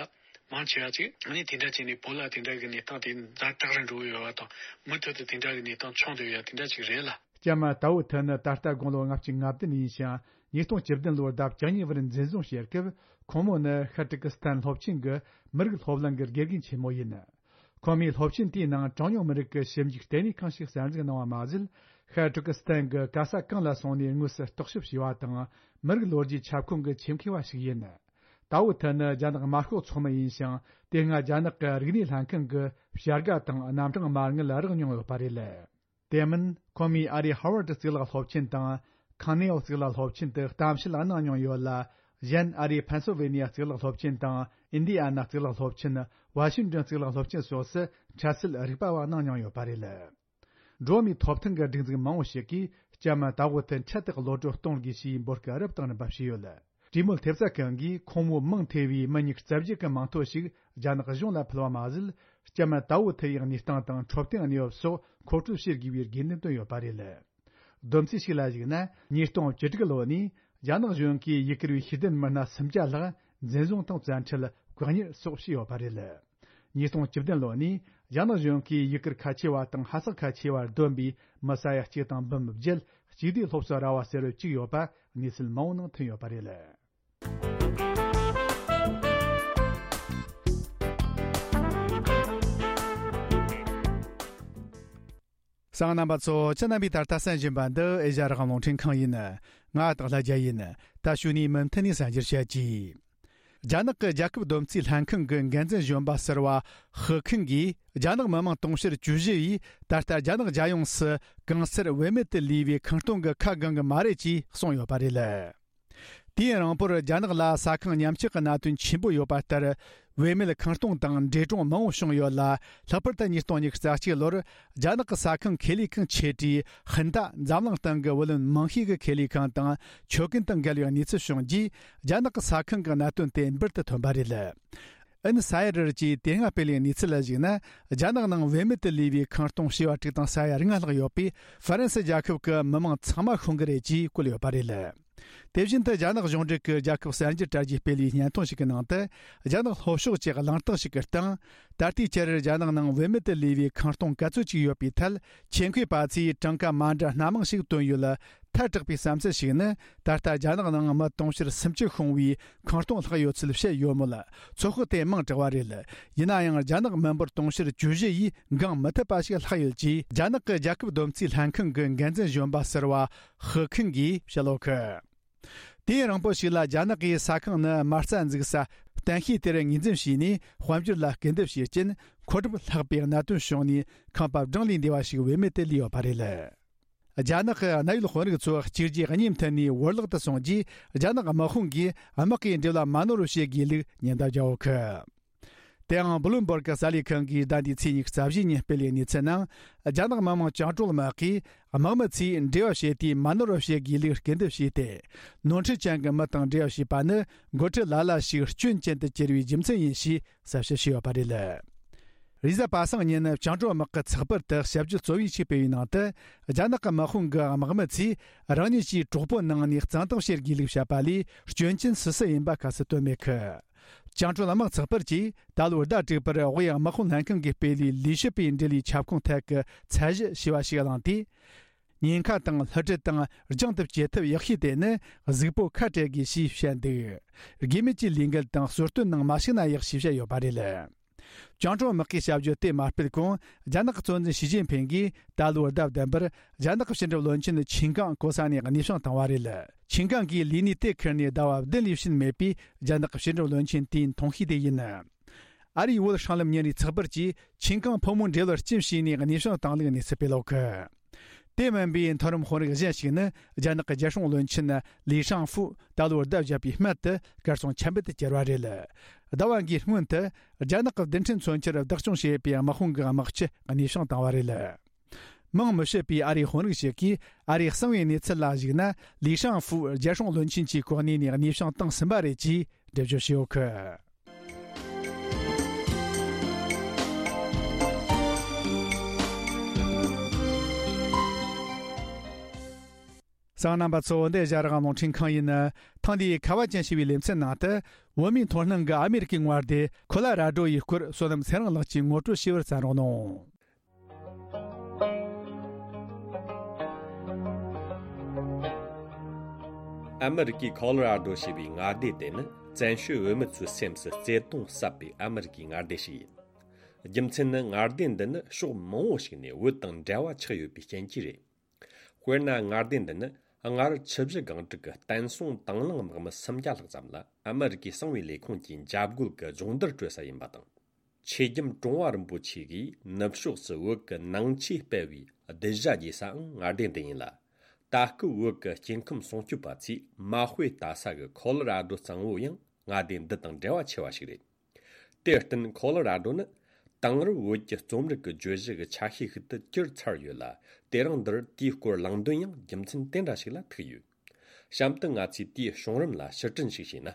མང་ཆེ་བ་ཅིག་ཨ་ནི་དེ་འདྲ་བྱས་ནས་བོད་ལ་དེ་འདྲ་གི་གནས་སྟངས་དེ་ཛ་དྲག་རུ་འགྲོ་གི་ཡོད་པ་དང་། མུ་མཐུད་དུ་དེ་འདྲ་གི་གནས་སྟངས་བྱུང་བསྡད་ཡོད་ཡ་དེ་འདྲ་ཅིག་རེད་ལ། ལྕམ་ཏའོ་ཐི་ནི་ད་ལྟ་དགུང་ལོ་ལྔ་བཅུ་ང་བདུན་ཡིན་ཞིང་། ཉིས་སྟོང་བཅུ་བདུན་ལོར་ཟླ་བཅུ་གཉིས་པར་འཛིན་བཟུང་བྱས་སྐབས། ཁོང་མོ་ནི་ཤར་ཏུར་ཀི་སི་ཐན་སློབ་ཆེན་གྱི་མི་རིགས་སློབ་གླིང་གི་དགེ་རྒན་ཆེན་མོ་ཡིན། ཁོ་མོས་སློབ་ཆེན་དེའི་ནང་གྲངས་ཉུང་མི་རིགས་ཀྱི་ཞིབ་འཇུག་ལྟེ་གནས་ཁང་ཞིག་གསར་འཛུགས་གནང་བ་མ་ཟད། ཤར་ཏུར་ཀི་སི་ཐན་གྱི་ག་ས་གང་ལ་སོང་ནས་དངོས་སུ་རྟོག་ཞིབ་བྱས་པ་དང་། མི་རིགས་ལོ་རྒྱུས་ཁྱབ་ཁོངས་ཀྱི་ཆེད་མཁས་པ་ཞིག་ཡིན། ཏའོ་ཐི་ནི་རྒྱ་ནག་དམར་ཤོག་ཚོགས་མི་ཡིན་ཞིང་། དེ་སྔ་རྒྱ་ནག་གི་རིག་གནས་ལྷན་ཁང་གི་བྱ་དགའ་དང་རྣམ་གྲངས་མ་དངུལ་རག་མྱོང་ཡོད་པ་རེད། དེ་མིན། ཁོ་མོས་ཨ་རིའི་ཧར་ཝར་ཌི་གཙུག་ལག་སློབ་ཆེན་དང་། ཁང་ནེའོ་གཙུག་ལག་སློབ་ཆེན་དུ་གཏམ་བཤད་གནང་མྱོང་ཡོད་ལ། གཞན་ཨ་རིའི་ཕེན་སིལ་ཝེ་ནི་ཡ་གཙུག་ལག་སློབ་ཆེན་དང་། ཨིན་ཌི་ཡ་ན་གཙུག་ལག་སློབ་ཆེན། ཝ་ཤིང་ཏོན་གཙུག་ལག་སློབ་ཆེན་སོགས་སུ་འཕྲལ་སེལ་རིག་པ་བ་གནང་མྱོང་ཡོད་པ་རེད། འགྲོ་བ་མིའི་ཐོབ་ཐང་གི་སྒྲིག་འཛུགས་མང་བོ་ཞིག་གིས་ལྕམ་ཏའོ་ཐི་འཕྲལ་དུ་གློད་བཀྲོལ་གཏོང་དགོས་ཞེས་འབོད་སྐུལ་རབ་དང་རིམ་པ་བྱས་ཡོད། གྲོས་མོལ་ཐེབས་རྩ་ཁང་གིས་ཁོང་མོའི་མིང་ཐེ་བའི་མི་ཉིས་རྩ་བརྒྱད་ཀྱི་མིང་ཐོ་ཞིག་རྒྱ་ནག་གཞུང་ལ་ཕུལ་བ་མ་ཟད། ལྕམ་ཏའོ་ཐི་ཡི་གནས་སྟངས་དང་འཕྲོད་བསྟེན་གནས་བབ་སོགས་མཁོ་སྤྲོད་བྱེད་དགོས་པའི་དགོས་འདུན་བཏོན་ཡོད་པ་རེད། བསྡོམས་རྩིས་ཤིག་ལ་གཞིགས་ན། ཉིས་སྟོང་བཅུ་དྲུག་ལོ་ནས་རྒྱ་ནག་གཞུང་གིས་ཡུ་གུར་བའི་ཤེས་ལྡན་མི་སྣ་སུམ་བརྒྱ་ལྷག་འཛིན་བཟུང་དང་བཙན་ཁྲིད། བཀག་ཉར་སོགས་བྱས་ཡོད་པ་རེད། ཉིས་སྟོང་བཅུ་བདུན་ལོ་ནས་རྒྱ་ནག་གཞུང་གིས་ཡུལ་སྐོར་ཁ་ཆེ་བ་དང་ཧ་སག་ཁ་ཆེ་བར་བསྡོམས་པའི་མི་ས་ཡ་གཅིག་དང་འབུམ་བརྒྱད་གཅིག་སྡུད་སློབ་གསོ་ར་བ་ཟེར་བ་བཅུག་ཡོད་པ་གནས་ཚུལ་མང་བོ་ནང་ཐོན་ཡོད་པ་རེད། གསན་མཁན་རྣམ་པ་ཚོ། ཁྱེད་རྣམ་པས་ད་ལྟ་གསན་བཞིན་པ་འདི་ཨེ་ཤ་ཡ་རང་དབང་རླུང་འཕྲིན་ཁང་ཡིན། ང་སྟག་ལྷ་རྒྱལ་ཡིན། ད་གཞུག་ནས་མུ་མཐུད་ནས་གསན་རྒྱུར་བྱེད་ཀྱིས། རྒྱ་ནག་གི་རྒྱལ་ཁབ་བསྡོམས་རྩིས་ལྷན་ཁང་གི་འགན་འཛིན་གཞོན་པ་ཟུར་པ་ཧུ་ཁིན་གྱིས། རྒྱ་ནག་མི་དམངས་དུང་ཕྱུར་བཅུ་བཞི་ཡིས་ད་ལྟ་རྒྱ་ནག་རྒྱལ་ཡོངས་སུ་གང་སར་བེད་མེད་དུ་ལུས་པའི་ཁང་སྟོང་གི་ཁ་གང་གི་མ་རེད་ཅེས་གསུངས་ཡོད་པ་རེད། དུས་ཡུན་རིང་པོར་རྒྱ་ནག་ལ་ས་ཁང་ཉམས་ཆག་གི་གནད་དོན་ཆེན་པོ་ཡོད་པ་ལྟར། བེད་མེད་ཁང་སྟོང་དང་འདྲེ་གྲོང་མང་བོ་བྱུང་ཡོད་ལ། ལྷག་པར་དུ་ཉིས་སྟོང་ཉི་ཤུ་རྩ་གཅིག་ལོར་རྒྱ་ནག་གི་ས་ཁང་ཁེ་ལས་ཁང་ཆེ་གྲས་ཧིན་ཏ་འཛམ་གླིང་སྟེང་གི་བུ་ལོན་མང་ཤོས་ཀྱི་ཁེ་ལས་ཁང་དང་ཆོད་གན་དང་འགལ་བའི་གནས་ཚུལ་བྱུང་རྗེས། རྒྱ་ནག་གི་ས་ཁང་གི་གནད་དོན་དེ་འབུར་དུ་ཐོན་པ་རེད། ཨིན་སའེ་ཌར་གྱིས་དེ་སྔ་སྤེལ་བའི་གནས་ཚུལ་ལ་གཞིགས་ན། རྒྱ་ནག་ནང་བེད་མེད་དུ་ལུས་པའི་ཁང་སྟོང་བྱེ་བ་དྲུག་དང་ས་ཡ་ལྔ་ལྷག་ཡོད་པས། ཧྥ་རན་སི་རྒྱལ་ཁབ་ཀྱི་མི་མང་ཚང་མ་ཤོང་གི་རེད་ཅེས་བཀོད་ཡོད་པ་རེད། དེ་བཞིན་དུ་རྒྱ་ནག་གཞུང་འབྲེལ་གྱི་རྒྱལ་ཁབ་གསར་འགྱུར་དྲ་རྒྱའི་སྤེལ་བའི་སྙན་ཐོ་ཞིག་གི་ནང་དུ། རྒྱ་ནག་ལྷོ་ཕྱོགས་ཀྱི་གླེང་སྟེགས་ཤིག་གི་སྟེང་། ད་ལྟའི་ཆར་རྒྱ་ནག་ནང་བེད་མེད་དུ་ལུས་པའི་ཁང་སྟོང་ག་ཚོད་ཅིག་ཡོད་པའི་ཐད། ཆེད་མཁས་པ་ཚོས་གྲངས་ཀ་མ་འདྲ་སྣ་མང་ཞིག་བཏོན་ཡོད་ལ། ཐལ་དྲགས་པའི་བསམ་ཚུལ་ཞིག་ནི། ད་ལྟ་རྒྱ་ནག་ནང་མི་དུང་ཕྱུར་སུམ་ཅུ་ཤོང་བའི་ཁང་སྟོང་ལྷག་ཡོད་ཚུལ་བཤད་ཡོད་མོད། ཚོད་དཔག་དེ་མང་དྲགས་པ་རེད། ཡིན་ན་ཡང་རྒྱ་ནག་མི་འབོར་དུང་ཕྱུར་བཅུ་བཞི་ཡིས་འགང་མི་ཐུབ་པ་ཞིག་ལྷག་ཡོད་ཅེས། རྒྱ་ནག་གི་རྒྱལ་ཁབ་བསྡོམས་རྩིས་ལྷན་ཁང་གི་འགན་འཛིན་གཞོན་པ་ཟུར་པ་ཧུ་ཁིན་གྱིས་བཤད་ཡོད་གི། དུས་ཡུན་རིང་པོ་ཞིག་ལ་རྒྱ་ནག་གིས་ས་ཁང་ནི་མ་རྩ་འཛུགས་ས་གཏན་ཤེལ་དེར་ངོས་འཛིན་བྱས་ནས། དཔལ་འབྱོར་ལ་སྐུལ་འདེད་བྱས་རྐྱེན། མཁོ་སྒྲུབ་ལྷག་པའི་གནད་དོན་བྱུང་ནས། ཁང་པ་བགྲང་ལས་འདས་པ་ཞིག་བེད་མེད་དུ་ལུས་ཡོད་པ་རེད། རྒྱ་ནག་གི་གནད་ཡོད་དཔོན་རིགས་ཚོ་གཅིག་རྗེས་གཉིས་མཐུད་ནས་བོར་བརླག་ཏུ་སོང་རྗེས། རྒྱ་ནག་དམག་དཔུང་གིས་དམག་གི་འབྲེལ་བ་མ་ནོར་བར་བྱེད་དགོས་ལུགས་ཉེན་བརྡ་བརྒྱབ་ཡོད་གི། དེའང་བླུམ་སྦུར་གི་གསར་ལས་ཁང་གིས་ཟླ་འདིའི་ཚེས་ཉི་ཤུ་རྩ་བཞིའི་ཉིན་སྤེལ་བའི་གནས་ཚུལ་ནང་། རྒྱ་ནག་མི་དམངས་བཅིངས་འགྲོལ་དམག་གིས་དམག་མི་ཚོས་འབྲེལ་བ་བྱེད་དུས་མ་ནོར་བར་བྱེད་དགོས་ལུགས་སྐུལ་འདེབས་བྱས་ཏེ། ནོར་འཁྲུལ་ཅན་གྱི་མི་དང་འབྲེལ་བ་བྱས་པ་ནི། འགོ་ཁྲིད་ལ་ལ་ཞིག་སྐྱོན་ཅན་དུ་གྱུར་བའི་རྒྱུ་མཚན་ཡིན་ཞེས་གསལ་བཤད་བྱས་ཡོད་པ་རེད། རེས་གཟའ་པ་སངས་ཉིན་བཅིངས་འགྲོལ་དམག་གི་ཚགས་པར་དུ་ཞིབ་བརྗོད་གཙོ་བོའི་ཆེད་སྤེལ་བའི་ནང་དུ། རྒྱ་ནག་གི་དམག་དཔུང་གི་དམག་མི་ཚོས་རང་ཉིད་ཀྱི་གྲོགས་པོ་ནང་ནས་གཙང་དག་བྱེད་དགོས་ལུགས་བཤད་པ་ལས། སྐྱོན་ཅན་སུ་སུ་ཡིན་པ་ཁ་གསལ་བཏོན་མེད་གི། བཅིངས་འགྲོལ་དམག་ཚགས་པར་གྱིས་ད་ལོའི་ཟླ་དྲུག་པར་དབུས་དམག་དཔུང་ལྷན་ཁང་གིས་སྤེལ་བའི་ལས་བྱེད་པའི་འབྲེལ་ཡོད་ཁྱབ་ཁོངས་ཐད་ཀྱི་ཚད་གཞི་ཞེས་པ་ཞིག་བླངས་ཏེ། ཉེན་ཁ་དང་བསླུ་བྲིད་དང་རྒྱང་དུ་བསྐྱེད་ཐབས་ཡག་ཤོས་དེ་ནི་གཟུགས་པོ་ཁ་བྲལ་དགོས་ཞེས་བཤད་འདུག། དགོས་མེད་ཀྱི་ལས་འགུལ་དང་གསོལ་སྟོན་ནང་མ་ཞུགས་ན་ཡག་ཞེས་བཤད་ཡོད་པ་རེད། བཅིངས་འགྲོལ་དམག་གིས་བྱ་སྤྱོད་དེ་མ་སྤེལ་གོང་། རྒྱ་ནག་གི་གཙོ་འཛིན་ཞི་ཅིན་ཕིང་གིས་ད་ལོའི་ཟླ་བདུན་པར་རྒྱ་ནག་གི་ཕྱི་འབྲེལ་བློན་ཆེན་ཆིན་ཀང་གོ་ས་ནས་གནས་དབྱུང་བཏང་བ་རེད། ཆིན་ཀང་གིས་ལས་གནས་དེ་ཁུར་ནས་ཟླ་བ་བདུན་ལས་ཕྱིན་མེད་པས། རྒྱ་ནག་གི་ཕྱི་འབྲེལ་བློན་ཆེན་དེའི་འཐུང་ཤོས་དེ་ཡིན། ཨ་རིའི་བོད་སྲང་ལམ་ཉིན་རེའི་ཚགས་པར་གྱིས་ཆིན་ཀང་ཕོ་མོའི་འབྲེལ་བར་རྐྱེན་བྱས་ནས་གནས་དབྱུང་བཏང་ལུགས་གནས་ཚུལ་སྤེལ་ཡོད་གི། དེ་མིན་པའི་མཐོ་རིམ་དཔོན་རིགས་གཞན་ཞིག་ནི། རྒྱ་ནག་གི་རྒྱལ་སྲུང་བློན་ཆེན་ལི་ཧྲང་ཧྥུ་ད་ལོའི་ཟླ་བརྒྱད་པའི་སྨད་དུ་གར་སོང་ཆ་མེད་དུ་གྱུར་བ་རེད། ཟླ་བ་འགའི་སྔོན་དུ། རྒྱ་ནག་གི་རྡུལ་ཕྲན་མཚོན་ཆར་བདག་སྐྱོང་བྱེད་པའི་དམག་དཔུང་གི་དམག་སྤྱི་གནས་དབྱུང་བཏང་བ་རེད། མིང་མི་བཤད་པའི་ཨ་རིའི་དཔོན་རིགས་ཤིག་གིས། ཨ་རིས་གསང་བའི་གནས་ཚུལ་ལ་གཞིགས་ན། ལི་ཧྲང་ཧྥུ་རྒྱལ་སྲུང་བློན་ཆེན་གྱི་གོ་གནས་ནས་གནས་དབྱུང་བཏང་ཟིན་པ་རེད་ཅེས་འགྲེལ་བརྗོད་བྱས་ཡོད་གི། གསན་མཁན་རྣམ་པ་ཚོ། འདི་ཨེ་ཤ་ཡ་རང་དབང་རླུང་འཕྲིན་ཁང་ཡིན། ཐེངས་འདིའི་ཁ་བ་ཅན་ཞེས་པའི་ལེ་ཚན་ནང་དུ། བོད་མིའི་མཐོང་སྣང་གི་ཨ་མེ་རི་ཀའི་དངོས་སྡེ་ཁོ་ལ་ར་ཌོ་ཡི་སྐོར། བསོད་ནམས་ཚེ་རིང་ལགས་ཀྱིས་ངོ་སྤྲོད་ཞུ་བར་བརྩམས་རོགས་གནང་། ཨ་མེ་རི་ཀའི་ཁོ་ལོ་ར་ཌོ་ཞེས་པའི་མངའ་སྡེ་དེ་ནི། བཙན་བྱོལ་བོད་མི་ཚོའི་སེམས་སུ་བརྩེ་དུང་ཟབ་པའི་ཨ་མེ་རི་ཀའི་མངའ་སྡེ་ཞིག་ཡིན། རྒྱུ་མཚན་ནི། མངའ་སྡེ་འདི་ནི་ཕྱོགས་མང་བོ་ཞིག་ནས་བོད་དང་འབྲེལ་བ་ཆགས་ཡོད་པའི་རྐྱེན་གྱིས་རེད། དཔེར་ན། མངའ་སྡེ་འདི་ནི་སྔར་ཆུ་བཞི་སྒང་དྲུག་གི་བསྟན་སྲུང་དང་བླངས་དམག་མི་སུམ་བརྒྱ་ལྷག་ཙམ་ལ་ཨ་མེ་རི་ཀའི་གསང་བའི་ལས་ཁུངས་ཀྱིས་འཇབ་རྒོལ་གྱི་སྦྱོང་བརྡར་སྤྲོད་ས་ཡིན་པ་དང་། ཆོས་རྒྱལ་ཀྲུང་ཧྭ་རིན་པོ་ཆེ་གིས་ནུབ་ཕྱོགས་སུ་བོད་ཀྱི་ནང་ཆོས་སྤེལ་བའི་གདུལ་བྱ་རྒྱས་སའང་མངའ་སྡེ་འདི་ཡིན་ལ། ད་སྐབས་བོད་ཀྱི་སྐྱེ་ཁམས་སྲུང་སྐྱོབ་པ་ཚོས་མ་དཔེ་ལྟ་ས་གི་ཁོ་ལོ་ར་ཌོ་གཙང་བོ་ཡང་མངའ་སྡེ་འདི་དང་འབྲེལ་བ་ཆེ་བ་ཞིག་རེད། དེར་བརྟེན། ཁོ་ལོ་ར་ཌོ་ནི་དེང་རབས་བོད་ཀྱི་རྩོམ་རིག་གི་བརྗོད་གཞི་གི་ཆ་ཤས་ཤིག་ཏུ་གྱུར་ཚར་ཡོད་ལ། དེ་རིང་འདིར་དེའི་སྐོར་གླེང་དོན་ཡང་རྒྱུ་མཚན་དེ་འདྲ་ཞིག་ལ་ཐུག་ཡོད། གཤམ་དུ་ང་ཚོས་དེའི་བྱུང་རིམ་ལ་ཕྱིར་དྲན་ཞིག་བྱས་ན།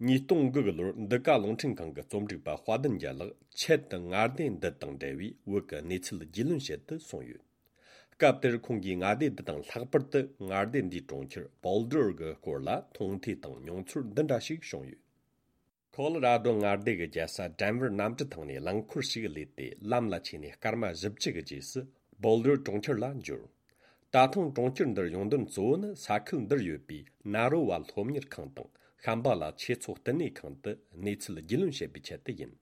ཉིས་སྟོང་དགུ་གི་ལོར་འདི་ག་རླུང་འཕྲིན་ཁང་གི་རྩོམ་སྒྲིག་པ་དཔལ་ལྡན་རྒྱལ་ལགས་ཆེད་དུ་མངའ་སྡེ་འདི་དང་འབྲེལ་བའི་བོད་ཀྱི་གནས་ཚུལ་རྒྱུས་ལོན་བྱེད་དུ་སོང་ཡོད། སྐབས་དེར་ཁོང་གིས་མངའ་སྡེ་འདི་དང་། ལྷག་པར་དུ་མངའ་སྡེ་འདིའི་གྲོང་ཁྱེར་བོལ་ཌར་གྱི་སྐོར་ལ་མཐོང་ཐོས་དང་མྱོང་ཚོར་འདི་འདྲ་ཞིག་བྱུང་ཡོད། ཁོ་ལོ་ར་རྡོ་མངའ་སྡེ་གི་རྒྱལ་ས་ཌེན་ཝར་གནམ་གྲུ་ཐང་ནས་རླངས་འཁོར་ཞིག་བསླས་ཏེ་ལམ་ལ་ཆས་ནས་སྐར་མ་བཞི་བཅུ་གི་རྗེས་སུ་བོལ་ཌར་གྲོང་ཁྱེར་ལ་འབྱོར། ད་ཐེངས་གྲོང་ཁྱེར་འདིར་ཡོང་དོན་གཙོ་བོ་ནི་ས་ཁུལ་འདིར་ཡོད་པའི་ན་རོ་བ་སློབ་གཉེར་ཁང་དང་ཤམ་བྷ་ལ་ཆོས་ཚོགས་བསྟི་གནས་ཁང་དུ་གནས་ཚུལ་རྒྱུས་ལོན་བྱེད་པའི་ཆེད་དུ་ཡིན།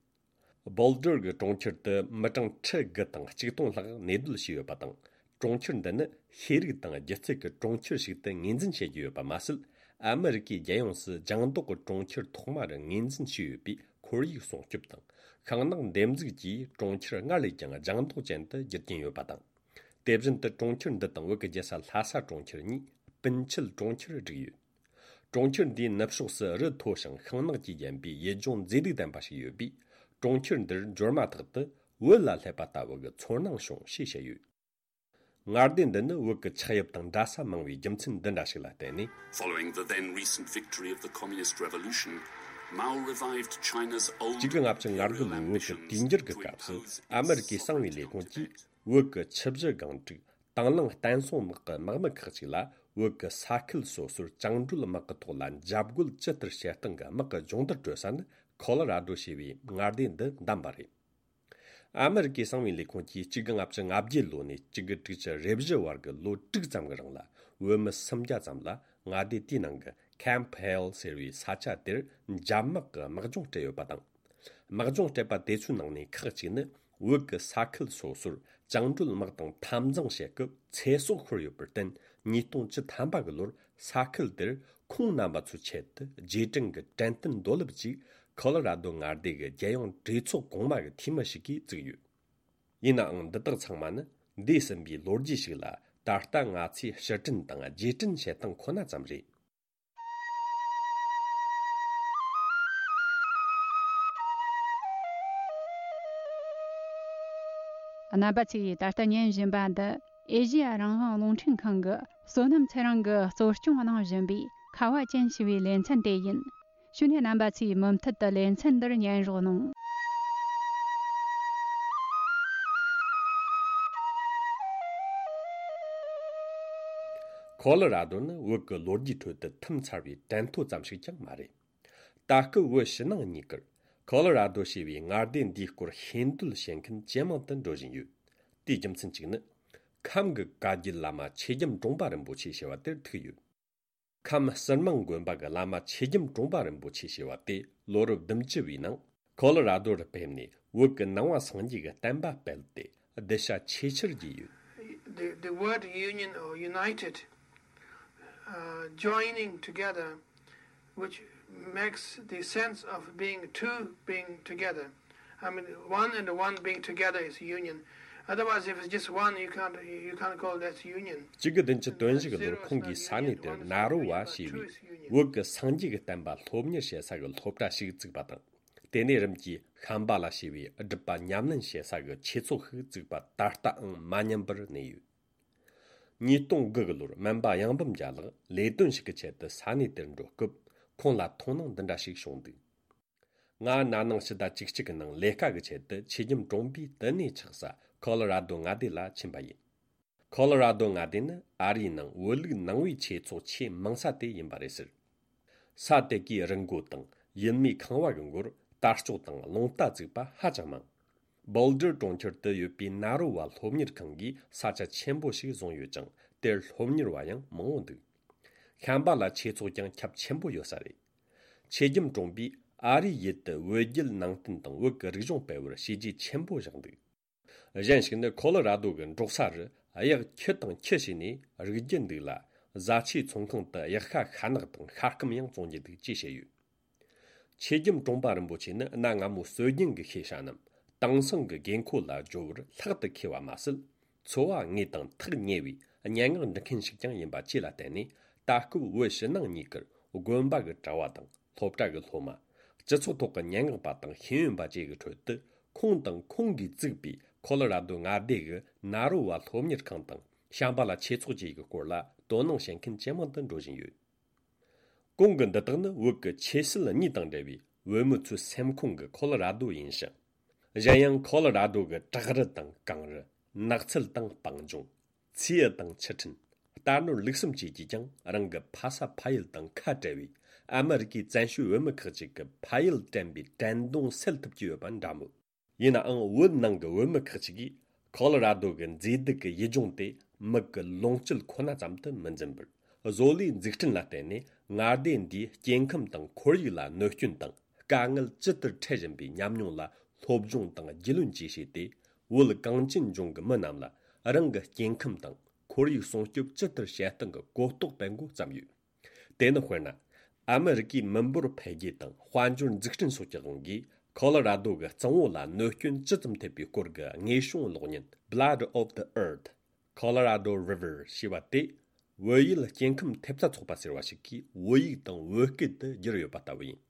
བོལ་ཌར་གྱི་གྲོང་ཁྱེར་དུ་མི་གྲངས་ཁྲི་དགུ་དང་གཅིག་སྟོང་ལྷག་གནས་སྡོད་བྱས་ཡོད་པ་དང་། གྲོང་ཁྱེར་འདི་ནི་ཤེས་རིག་དང་སྒྱུ་རྩལ་གྱི་གྲོང་ཁྱེར་ཞིག་ཏུ་ངོས་འཛིན་བྱེད་ཀྱི་ཡོད་པ་མ་ཟད། ཨ་མི་རི་ཀའི་རྒྱལ་ཡོངས་སུ་ལྗང་མདོག་གི་གྲོང་ཁྱེར་ཐོག་མ་རུ་ངོས་འཛིན་བྱས་ཡོད་པའི་ཁོར་ཡུག་སྲུང་སྐྱོབ་དང་ཤིང་ནགས་འདེབས་འཛུགས་ཀྱིས་གྲོང་ཁྱེར་སྔར་ལས་ཀྱང་ལྗང་མདོག་ཅན་དུ་འགྱུར་གྱིན་ཡོད་པ་དང་། དེ་བཞིན་དུ་གྲོང་ཁྱེར་འདི་དང་བོད་ཀྱི་རྒྱལ་ས་ལྷ་ས་གྲོང་ཁྱེར་གཉིས་སྤུན་མཆེད་གྲོང་ཁྱེར་བསྒྲིགས་ཡོད། གྲོང་ཁྱེར་འདིའི་ནུབ་ཕྱོགས་སུ་རི་མཐོ་ཞིང་ཤིང་ནགས་ཀྱིས་བརྒྱན་པའི་ཡུལ་ལྗོངས་མཛེས་སྡུག་ལྡན་པ་ཞིག་ཡོད་པས། གྲོང་ཁྱེར་འདིར་འབྱོར་མ་ཐག་ཏུ་བོད་ལ་སླེབས་པ་ལྟ་བུ་གི་ཚོར་སྣང་བྱུང་ཞེས་བཤད་ཡོད། མངའ་སྡེ་འདི་ནི་བོད་ཀྱི་ཆགས་དབྱིབས་དང་འདྲ་ས་མང་བའི་རྒྱུ་མཚན་འདི་འདྲ་ཞིག་ལ་བརྟེན་ནས། Following the then recent victory of the Communist Revolution, Mao revived China's old imperial ambitions to impose its authority on Tibet. གཅིག་དགུ་ལྔ་བཅུ་ང་དགུ་ལོའི་བོད་ཀྱི་དུས་འགྱུར་གྱི་སྐབས་སུ་ཨ་མི་རི་ཀའི་གསང་བའི་ལས་ཁུངས་ཀྱིས་བོད་ཀྱི་ཆུ་བཞི་སྒང་དྲུག་དང་བླངས་བསྟན་སྲུང་དམག་གི་དམག་མི་ཁག་ཅིག་ལ་བོད་ཀྱི་ས་ཁུལ་སོ་སོར་བཅིངས་འགྲོལ་དམག་གི་ཐོག་ལ་འཇབ་རྒོལ་ཇི་ལྟར་བྱེད་སྟངས་ཀྱི་དམག་གི་སྦྱོང་བརྡར་སྤྲོད་ས་ནི་ཁོ་ལོ་ར་རྡོ་ཞེས་པའི་མངའ་སྡེ་འདི་བདམས་པ་རེད། ཨ་མི་རི་ཀའི་གསང་བའི་ལས་ཁུངས་ཀྱིས་གཅིག་དགུ་ལྔ་བཅུ་ང་བརྒྱད་ལོ་ནས་གཅིག་དགུ་དྲུག་ཅུ་རེ་བཞི་བར་གྱི་ལོ་དྲུག་ཙམ་གྱི་རིང་ལ་བོད་མི་སུམ་བརྒྱ་ཙམ་ལ་མངའ་སྡེ་དེའི་ནང་གི་ཁེམ་ཕི་ཧེལ་ཟེར་བའི་ས་ཆ་དེར་འཇབ་དམག་གི་དམག་སྦྱོང་སྤྲད་ཡོད་པ་དང་། དམག་སྦྱོང་སྤྲད་པ་དེ་ཚོའི་ནང་ནས་ཁག་ཅིག་ནི་བོད་ཀྱི་ས་ཁུལ་སོ་སོར་བཅིངས་འགྲོལ་དམག་དང་འཐབ་འཛིང་བྱེད་སྐབས་ཚེ་སྲོག་ཤོར་ཡོད་པར་བརྟེན། ཉིས་སྟོང་བཅུ་ཐམ་པ་གི་ལོར་ས་ཁུལ་དེར་ཁོང་རྣམ་པ་ཚོའི་ཆེད་དུ་རྗེས་དྲན་གྱི་དྲན་རྟེན་རྡོ་ལེབ་ཅིག་ཁོ་ལོ་ར་རྡོ་མངའ་སྡེ་གི་རྒྱལ་ཡོངས་གྲོས་ཚོགས་གོང་མ་གི་འཐུས་མི་ཞིག་གིས་བཙུགས་ཡོད། ཡིན་ནའང་འདི་དག་ཚང་མ་ནི་འདས་ཟིན་པའི་ལོ་རྒྱུས་ཤིག་ལ་ད་ལྟ་ང་ཚོས་ཕྱིར་དྲན་དང་རྗེས་དྲན་བྱེད་སྟངས་ཁོ་ན་ཙམ་རེད། རྣམ་པ་ཚོས་ད་ལྟ་ཉན་བཞིན་པ་འདི་ཨེ་ཤེ་ཡ་རང་དབང་རླུང་འཕྲིན་ཁང་གི་བསོད་ནམས་ཚེ་རིང་གིས་གཙོ་སྐྱོང་གནང་བཞིན་པའི་ཁ་བ་ཅན་ཞེས་པའི་ལེ་ཚན་དེ་ཡིན། ཞུ་ནས་རྣམ་པ་ཚོས་མུ་མཐུད་དུ་ལེ་ཚན་འདིར་ཉན་རོགས་གནང་། ཁོ་ལོ་ར་རྡོ་ནི་བོད་ཀྱི་ལོ་རྒྱུས་ཁྲོད་དུ་ཐིམ་ཚར་བའི་དྲན་ཐོ་ཙམ་ཞིག་ཀྱང་མ་རེད། ད་སྐབས་བོད་ཕྱི་ནང་གཉིས་ཀར་ཁོ་ལོ་ར་རྡོ་ཞེས་པའི་མངའ་སྡེ་འདིའི་སྐོར་ཤེས་འདོད་བྱེད་མཁན་ཇེ་མང་དུ་འགྲོ་བཞིན་ཡོད། དེའི་རྒྱུ་མཚན་གཅིག་ནི། ཁམས་ཀྱི་བཀའ་བརྒྱུད་བླ་མ་ཆོས་རྒྱམ་གྲོང་པ་རིན་པོ་ཆེ་ཞེས་པ་དེར་ཐུག་ཡོད། ཁམས་ཟུར་མང་དགོན་པ་གི་བླ་མ་ཆོས་རྒྱམ་གྲོང་པ་རིན་པོ་ཆེ་ཞེས་པ་དེ་ལོ་རབས་བདུན་ཅུ་བའི་ནང་ཁོ་ལོ་ར་རྡོ་རུ་ཕེབས་ནས་བོད་ཀྱི་ནང་པ་སངས་རྒྱས་ཀྱི་བསྟན་པ་སྤེལ་ཏེ་གདུལ་བྱ་ཆེས་ཆེར་རྒྱས་ཡོད། The, the word union or united, uh, joining together, which makes the sense of being two being together. I mean, one and one being together is union. Otherwise, if it's just one, you can't, you can't call that union. གཅིག་དགུ་བདུན་ཅུ་དོན་བཞི་གི་ལོར་ཁོང་གིས་ས་གནས་དེར་ན་རོ་བ་ཞེས་པའི་བོད་ཀྱི་སངས་རྒྱས་ཀྱི་བསྟན་པ་སློབ་གཉེར་བྱེད་ས་གི་སློབ་གྲྭ་ཞིག་བཙུགས་པ་དང་། དེ་ནས་རིམ་གྱིས་ཤམ་བྷ་ལ་ཞེས་པའི་སྒྲུབ་པ་ཉམས་ལེན་བྱེད་ས་གི་ཆོས་ཚོགས་ཤིག་བཙུགས་པ་ད་ལྟའང་མ་ཉམས་པར་གནས་ཡོད། ཉིས་སྟོང་དགུ་གི་ལོར་སྨན་པ་གཡང་འབུམ་རྒྱལ་ལགས་ལས་དོན་ཞིག་གི་ཆེད་དུ་ས་གནས་དེར་འགྲོ་སྐབས་ཁོང་ལ་མཐོང་སྣང་འདི་འདྲ་ཞིག་བྱུང་འདུག་ང་ན་ནིང་ཕྱི་ཟླ་བཅུ་གཅིག་གི་ནང་ལས་ཀ་གི་ཆེད་དུ་ཆོས་རྒྱམ་གྲོང་པའི་བསྟི་གནས་ཆགས་ས་ཁོ་ལོ་ར་རྡོ་མངའ་སྡེ་ལ་ཕྱིན་པ་ཡིན། ཁོ་ལོ་ར་རྡོ་མངའ་སྡེ་ནི་ཨ་རིའི་ནང་བོད་ལུགས་ནང་པའི་ཆོས་ཚོགས་ཆེས་མང་ས་དེ་ཡིན་པ་རེད་ཟེར། ས་དེ་གའི་རི་མགོ་དང་ཡུལ་མིའི་ཁང་བ་གི་མགོར་དར་ལྕོག་དང་རླུང་རྟ་བཙུགས་པ་ཧ་ཅང་མང་། བོལ་ཌར་གྲོང་ཁྱེར་དུ་ཡོད་པའི་ན་རོ་བ་སློབ་གཉེར་ཁང་གིས་ས་ཆ་ཆེན་པོ་ཞིག་བཟུང་ཡོད་ཅིང་། དེར་སློབ་གཉེར་བ་ཡང་མང་བོ་འདུག་ཤམ་བྷ་ལ་ཆོས་ཚོགས་ཀྱང་ཁྱབ་ཆེན་པོ་ཡོད་ས་རེད། ཆོས་རྒྱམ་གྲོང་པས་ཨ་རིའི་ཡུལ་དུ་བོད་བརྒྱུད་ནང་བསྟན་དང་བོད་ཀྱི་རིག་གཞུང་སྤེལ་བར་བྱས་རྗེས་ཆེན་པོ་བཞག་འདུག་གཞན་ཞིག་ནི་ཁོ་ལོ་ར་རྡོ་གི་འབྲོག་ས་རུ་གཡག་ཁྱུ་དང་ཁྱུ་བྱས་ནས་རིགས་རྒྱུད་འདུག་ལ། བཟའ་ཆས་ཚོང་ཁང་དུ་གཡག་ཤ་ཤ་ནག་དང་ཤ་སྐམ་ཡང་བཙོང་རྒྱུ་འདུག་ཅེས་བཤད་ཡོད། ཆོས་རྒྱམ་གྲོང་པ་རིན་པོ་ཆེ་ནི་གནའ་སྔ་མོ་སྲོལ་རྒྱུན་གྱི་ཤེས་བྱ་རྣམས་དེང་སང་གི་དགོས་མཁོ་ལ་སྦྱོར་བར་ལྷག་ཏུ་མཁས་པ་མ་ཟད། འཚོ་བ་དངོས་དང་ཐག་ཉེ་བའི་སྙན་ངག་འབྲི་མཁན་ཞིག་ཀྱང་ཡིན་པ་བཅས་ལ་བརྟེན་ནས། ད་སྐབས་བོད་ཕྱི་ནང་གཉིས་ཀར་དགོན་པ་གི་གྲྭ་བ་དང་སློབ་གྲྭ་གི་སློབ་མ། སྤྱི་ཚོགས་ཐོག་གི་སྙན་ངག་པ་དང་ཤེས་ཡོན་པ་བཅས་ཀྱི་ཁྲོད་དུ། ཁོང་དང་ཁོང་གིས་བཙུགས་པའི་ཁོ་ལོ་ར་རྡོ་མངའ་སྡེ་གི་ན་རོ་བ་སློབ་གཉེར་ཁང་དང་ཤམ་བྷ་ལ་ཆོས་ཚོགས་བཅས་ཀྱི་སྐོར་ལ་དོ་སྣང་བྱེད་མཁན་ཇེ་མང་དུ་འགྲོ་བཞིན་ཡོད། གོང་གི་འདི་དག་ནི་བོད་ཀྱི་ཆོས་སྲིད་གཉིས་དང་འབྲེལ་བའི་བོད་མི་ཚོའི་སེམས་ཁོང་གི་ཁོ་ལོ་ར་རྡོ་ཡིན་ཞིང་། གཞན་ཡང་ཁོ་ལོ་ར་རྡོ་གི་བྲག་རི་དང་གངས་རི། ནགས་ཚལ་དང་སྤང་ལྗོངས། མཚེའུ་དང་ཆུ་ཕྲན། རྟ་ནོར་ལུག་གསུམ་བཅས་ཀྱིས་ཀྱང་རང་གི་ཕ་ས་ཕ་ཡུལ་དང་ཁ་བྲལ་བའི་ ཨ་མི་རི་ཀའི་བཙན་བྱོལ་བོད་མི་ཁག་ཅིག་གི་ཕ་ཡུལ་དྲན་པའི་དྲན་གདུང་སེལ་ཐུབ་ཀྱི་ཡོད་པ་འདྲ་མོད། ཡིན་ནའང་བོད་ནང་གི་བོད་མི་ཁག་ཅིག་གིས་ཁོ་ལོ་ར་རྡོ་གི་མཛེས་སྡུག་གི་ཡུལ་ལྗོངས་དེ་མི་གི་ལོངས་སྤྱོད་ཁོ་ན་ཙམ་དུ་མི་འཛིན་པར། བཟོ་ལས་འཛུགས་སྐྲུན་ལ་བརྟེན་ནས་མངའ་སྡེ་འདིའི་སྐྱེ་ཁམས་དང་ཁོར་ཡུག་ལ་གནོད་སྐྱོན་དང་དཀའ་ངལ་ཇི་ལྟར་འཕྲད་བཞིན་པའི་ཉམས་མྱོང་ལ་སློབ་སྦྱོང་དང་རྒྱུས་ལོན་བཅས་བྱས་ཏེ། བོད་གངས་ཅན་ལྗོངས་ཀྱི་མི་རྣམས་ལ་རང་གི་སྐྱེ་ཁམས་དང་ཁོར་ཡུག་སྲུང་སྐྱོབ་ཇི་ལྟར་བྱེད་སྟངས་ཀྱི་གོ་རྟོགས་སྤེལ་འགོ་བརྩམས་ཡོད། དེ་ནི་དཔེར་ན། ཨ་མི་རི་ཀའི་མི་འབོར་འཕེལ་རྒྱས་དང་དཔལ་འབྱོར་འཛུགས་སྐྲུན་སོགས་ཀྱི་དབང་གིས། ཁོ་ལོ་ར་རྡོ་གི་གཙང་བོ་ལ་གནོད་སྐྱོན་ཇི་ཙམ་ཐེབས་པའི་སྐོར་གྱི་དངོས་བྱུང་གློག་བརྙན་Blood of the Earth, Colorado River ཞེས་པ་དེ། བོད་ཡུལ་སྐྱེ་ཁམས་ཐེབས་རྩ་ཚོགས་པ་ཟེར་བ་ཞིག་གིས་བོད་ཡིག་དང་བོད་སྐད་དུ་བསྒྱུར་ཡོད་པ་ལྟ་བུ་ཡིན།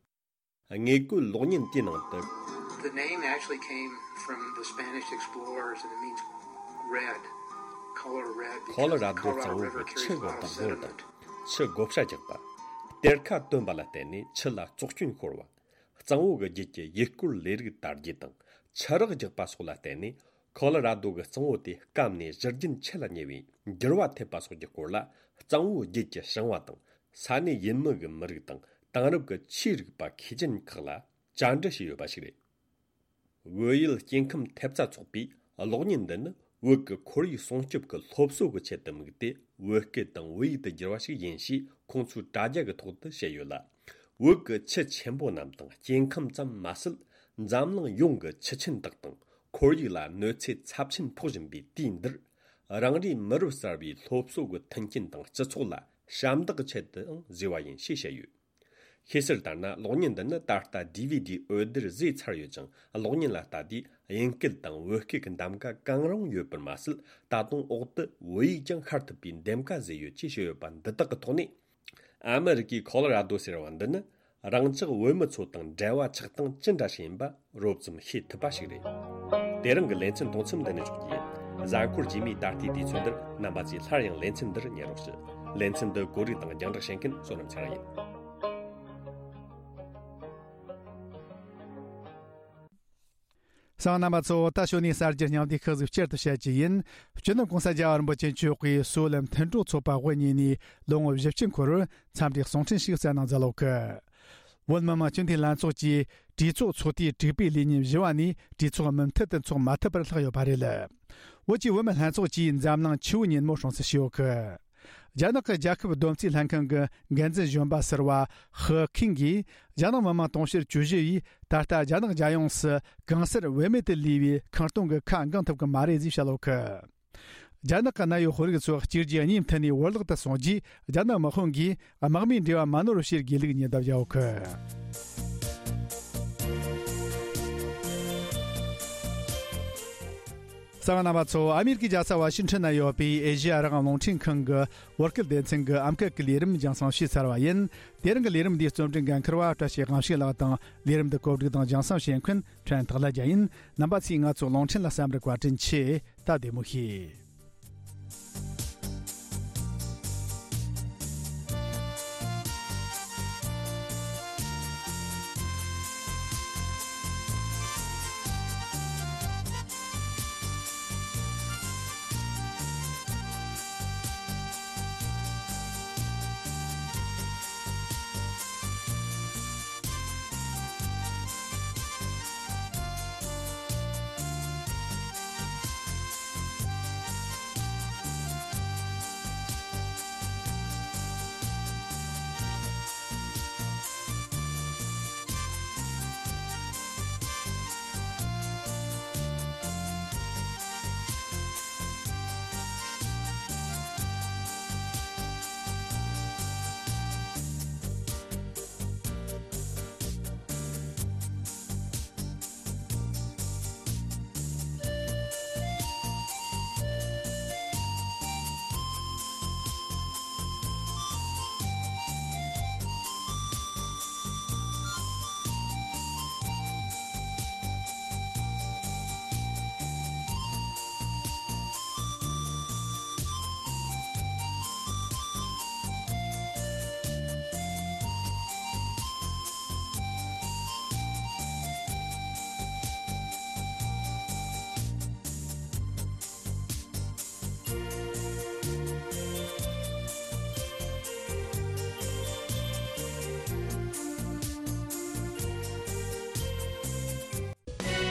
དངོས་བཀོད་གློག་བརྙན་དེའི་ནང་དུ། The name actually came from the Spanish explorers and it means red, color red, ཁོ་ལོ་ར་རྡོ་གཙང་བོ་གི་ཆུ་གི་བདག་པོ་དང་ཆུ་བགོ་བཤའ་རྒྱག་པ། གཏེར་ཁ་བཏོན་པ་ལ་བརྟེན་ནས་ཆུ་ལ་བཙོག་སྐྱོན་ཤོར་བ། གཙང་བོ་གི་རྒྱུད་ཀྱི་ཡུལ་སྐོར་ལས་རིགས་དར་རྒྱས་དང་ཆུ་རགས་རྒྱག་པ་སོགས་ལ་བརྟེན་ནས། ཁོ་ལོ་ར་རྡོ་གི་གཙང་བོ་དེ་སྐམ་ནས་བཞུར་རྒྱུན་ཆད་ལ་ཉེ་བའི་འགྱུར་བ་ཐེབས་པ་སོགས་ཀྱི་སྐོར་ལ། གཙང་བོའི་རྒྱུད་ཀྱི་ཞིང་བ་དང་ས་གནས་ཡུལ་མི་གི་མི་རིགས་དང་དེང་རབས་ཀྱི་ཆོས་རིག་པ་མཁས་ཅན་ཁག་ལ་བཅར་འདྲི་བྱས་ཡོད་པ་ཞིག་རེད། བོད་ཡུལ་སྐྱེ་ཁམས་ཐེབས་རྩ་ཚོགས་པས་གློག་བརྙན་འདི་ནི་བོད་ཀྱི་ཁོར་ཡུག་སྲུང་སྐྱོབ་ཀྱི་སློབ་གསོ་གི་ཆེད་དུ་དམིགས་ཏེ་བོད་སྐད་དང་བོད་ཡིག་ཏུ་བསྒྱུར་བ་ཞིག་ཡིན་ཞེས་ཁོང་ཚོའི་དྲ་རྒྱ་གི་ཐོག་ཏུ་བཤད་ཡོད་ལ། བོད་ཀྱི་ཆུ་ཆེན་པོ་རྣམས་དང་སྐྱེ་ཁམས་ཙམ་མ་ཟད། འཛམ་གླིང་ཡོངས་ཀྱི་ཆུ་ཆེན་དག་དང་ཁོར་ཡུག་ལ་གནོད་འཚེ་ཚབས་ཆེན་ཕོག་བཞིན་པའི་དུས་འདིར། རང་རེའི་མི་རབས་གསར་བའི་སློབ་གསོ་གི་མཐུན་རྐྱེན་དང་སྤྱི་ཚོགས་ལ་ཞབས་འདེགས་ཆེད་དུའང་བཟོས་པ་ཡིན་ཞེས་བཤད་ཡོད། ཤེས་གསལ་ལྟར་ན། གློག་བརྙན་འདི་ནི་ད་ལྟ་ཌི་ཝི་ཌི་འོད་སྡེར་བཟོས་ཚར་ཡོད་ཅིང་། གློག་བརྙན་ལ་ལྟ་དུས་དབྱིན་སྐད་དང་བོད་སྐད་ཀྱི་འདེམས་ཀ་གང་རུང་ཡོད་པར་མ་ཟད། ད་དུང་འོག་ཏུ་བོད་ཡིག་ཀྱང་ཤར་ཐུབ་པའི་འདེམས་ཀ་བཟོས་ཡོད་ཅེས་བཤད་ཡོད་པ་འདི་དག་གི་ཐོག་ནས། ཨ་མི་རི་ཀའི་ཁོ་ལོ་ར་རྡོ་ཟེར་བ་འདི་ནི། རང་ཅག་བོད་མི་ཚོ་དང་འབྲེལ་བ་ཆགས་སྟངས་ཅི་འདྲ་ཞིག་ཡིན་པ་རོབ་ཙམ་ཤེས་ཐུབ་པ་ཞིག་རེད། དེ་རིང་གི་ལེ་ཚན་གཏོང་མཚམས་འདི་ནས་འཇོག་རྒྱུ་ཡིན། གཟའ་འཁོར་རྗེས་མའི་ད་ལྟའི་དུས་ཚོད་འདིར་རྣམ་པ་ཚོས་སླར་ཡང་ལེ་ཚན་འདིར་ཉན་རོགས་ཞུ། ལེ་ཚན་འདི་གོ་སྒྲིག་དང་རྒྱང་བསྒྲགས་བྱེད་མཁན་བསོད་ནམས་ཚེ་རིང་ཡིན། གསན་པ་རྣམ་པ་ཚོ། ད་ཞོ་ནས་གསར་འགྱུར་སྙིང་བསྡུས་ཁག་ཟིག་བསྐྱར་དུ་བཤད་རྒྱུ་ཡིན། སྤྱི་ནོར་གོང་ས་རྒྱལ་བ་རིན་པོ་ཆེ་མཆོག་གིས་སོ་ལམ་མཐུན་གྲོགས་ཚོགས་པ་དབུ་བརྙེས་ནས་ལོ་ངོ་བཞི་བཅུ་འཁོར་བར་འཚམས་འདྲིའི་གསུང་འཕྲིན་ཞིག་གསན་གནང་མཛད་ཡོད་གི། བོད་མི་མང་སྤྱི་འཐུས་ལྷན་ཚོགས་ཀྱིས་གྲོས་ཚོགས་ཚོགས་དུས་དྲུག་པའི་ལས་ཉིན་བཞི་བ་ནས་གྲོས་ཚོགས་མུ་མཐུད་དུ་འཚོགས་མ་ཐུབ་པར་ལྷག་ཡོད་པ་རེད། བོད་ཀྱི་བུད་མེད་ལྷན་ཚོགས་ཀྱིས་འཛམ་གླིང་ཆུ་བོའི་ཉིན་མོ་སྲུང་བརྩི་ཞུས་ཡོད་གི། རྒྱ་ནག་གི་རྒྱལ་ཁབ་བསྡོམས་རྩིས་ལྷན་ཁང་གི་འགན་འཛིན་གཞོན་པ་ཟུར་པ་ཧི་ཁིང་གིས། རྒྱ་ནག་མི་དམངས་དུང་ཕྱུར་བཅུ་བཞི་ཡིས་ད་ལྟ་རྒྱ་ནག་རྒྱལ་ཡོངས་སུ་གང་སར་བེད་མེད་དུ་ལུས་པའི་ཁེངས་སྐྱུང་གི་ཁ་འགེངས་ཐུབ་ཀྱི་མ་རེད་ཅེས་བཤད་ཡོད་གི། རྒྱ་ནག་གི་གནད་ཡོད་དཔོན་རིགས་ཚོ་གཅིག་རྗེས་གཉིས་མཐུད་ནས་བོར་བརླག་ཏུ་སོང་རྗེས། རྒྱ་ནག་དམག་དཔུང་གིས་དམག་མིའི་འབྲེལ་བ་མ་ནོར་བར་བྱེད་དགོས་ལུགས་ཉེན་བརྡ་བརྒྱབ་ཡོད་གི། གསན་པ་རྣམ་པ་ཚོ། ཨ་མེ་རི་ཀའི་རྒྱལ་ས་ཝ་ཤིང་ཊོན་ན་ཡོད་པའི་ཨེ་ཤེ་ཡ་རང་དབང་རླུང་འཕྲིན་ཁང་གི་བོད་སྐད་སྡེ་ཚན་གྱི་ཨམ་སྐད་ཀྱི་ལས་རིམ་རྒྱང་སྲིང་ཞུས་ཚར་བ་ཡིན། དེ་རིང་གི་ལས་རིམ་འདིའི་རྩོམ་སྒྲིག་འགན་འཁུར་བ་བཀྲ་ཤིས་དབང་ཕྱུག་ལགས་དང་། ལས་རིམ་འདི་གོ་སྒྲིག་དང་རྒྱང་སྲིང་བྱེད་མཁན་ཕྲན་ཐག་ལ་རྒྱལ་ཡིན། རྣམ་པ་ཚོས་ང་ཚོའི་རླུང་འཕྲིན་ལ་གསན་པར་བཀའ་དྲིན་ཆེ། ད་བདེ་མོ་བྱོས།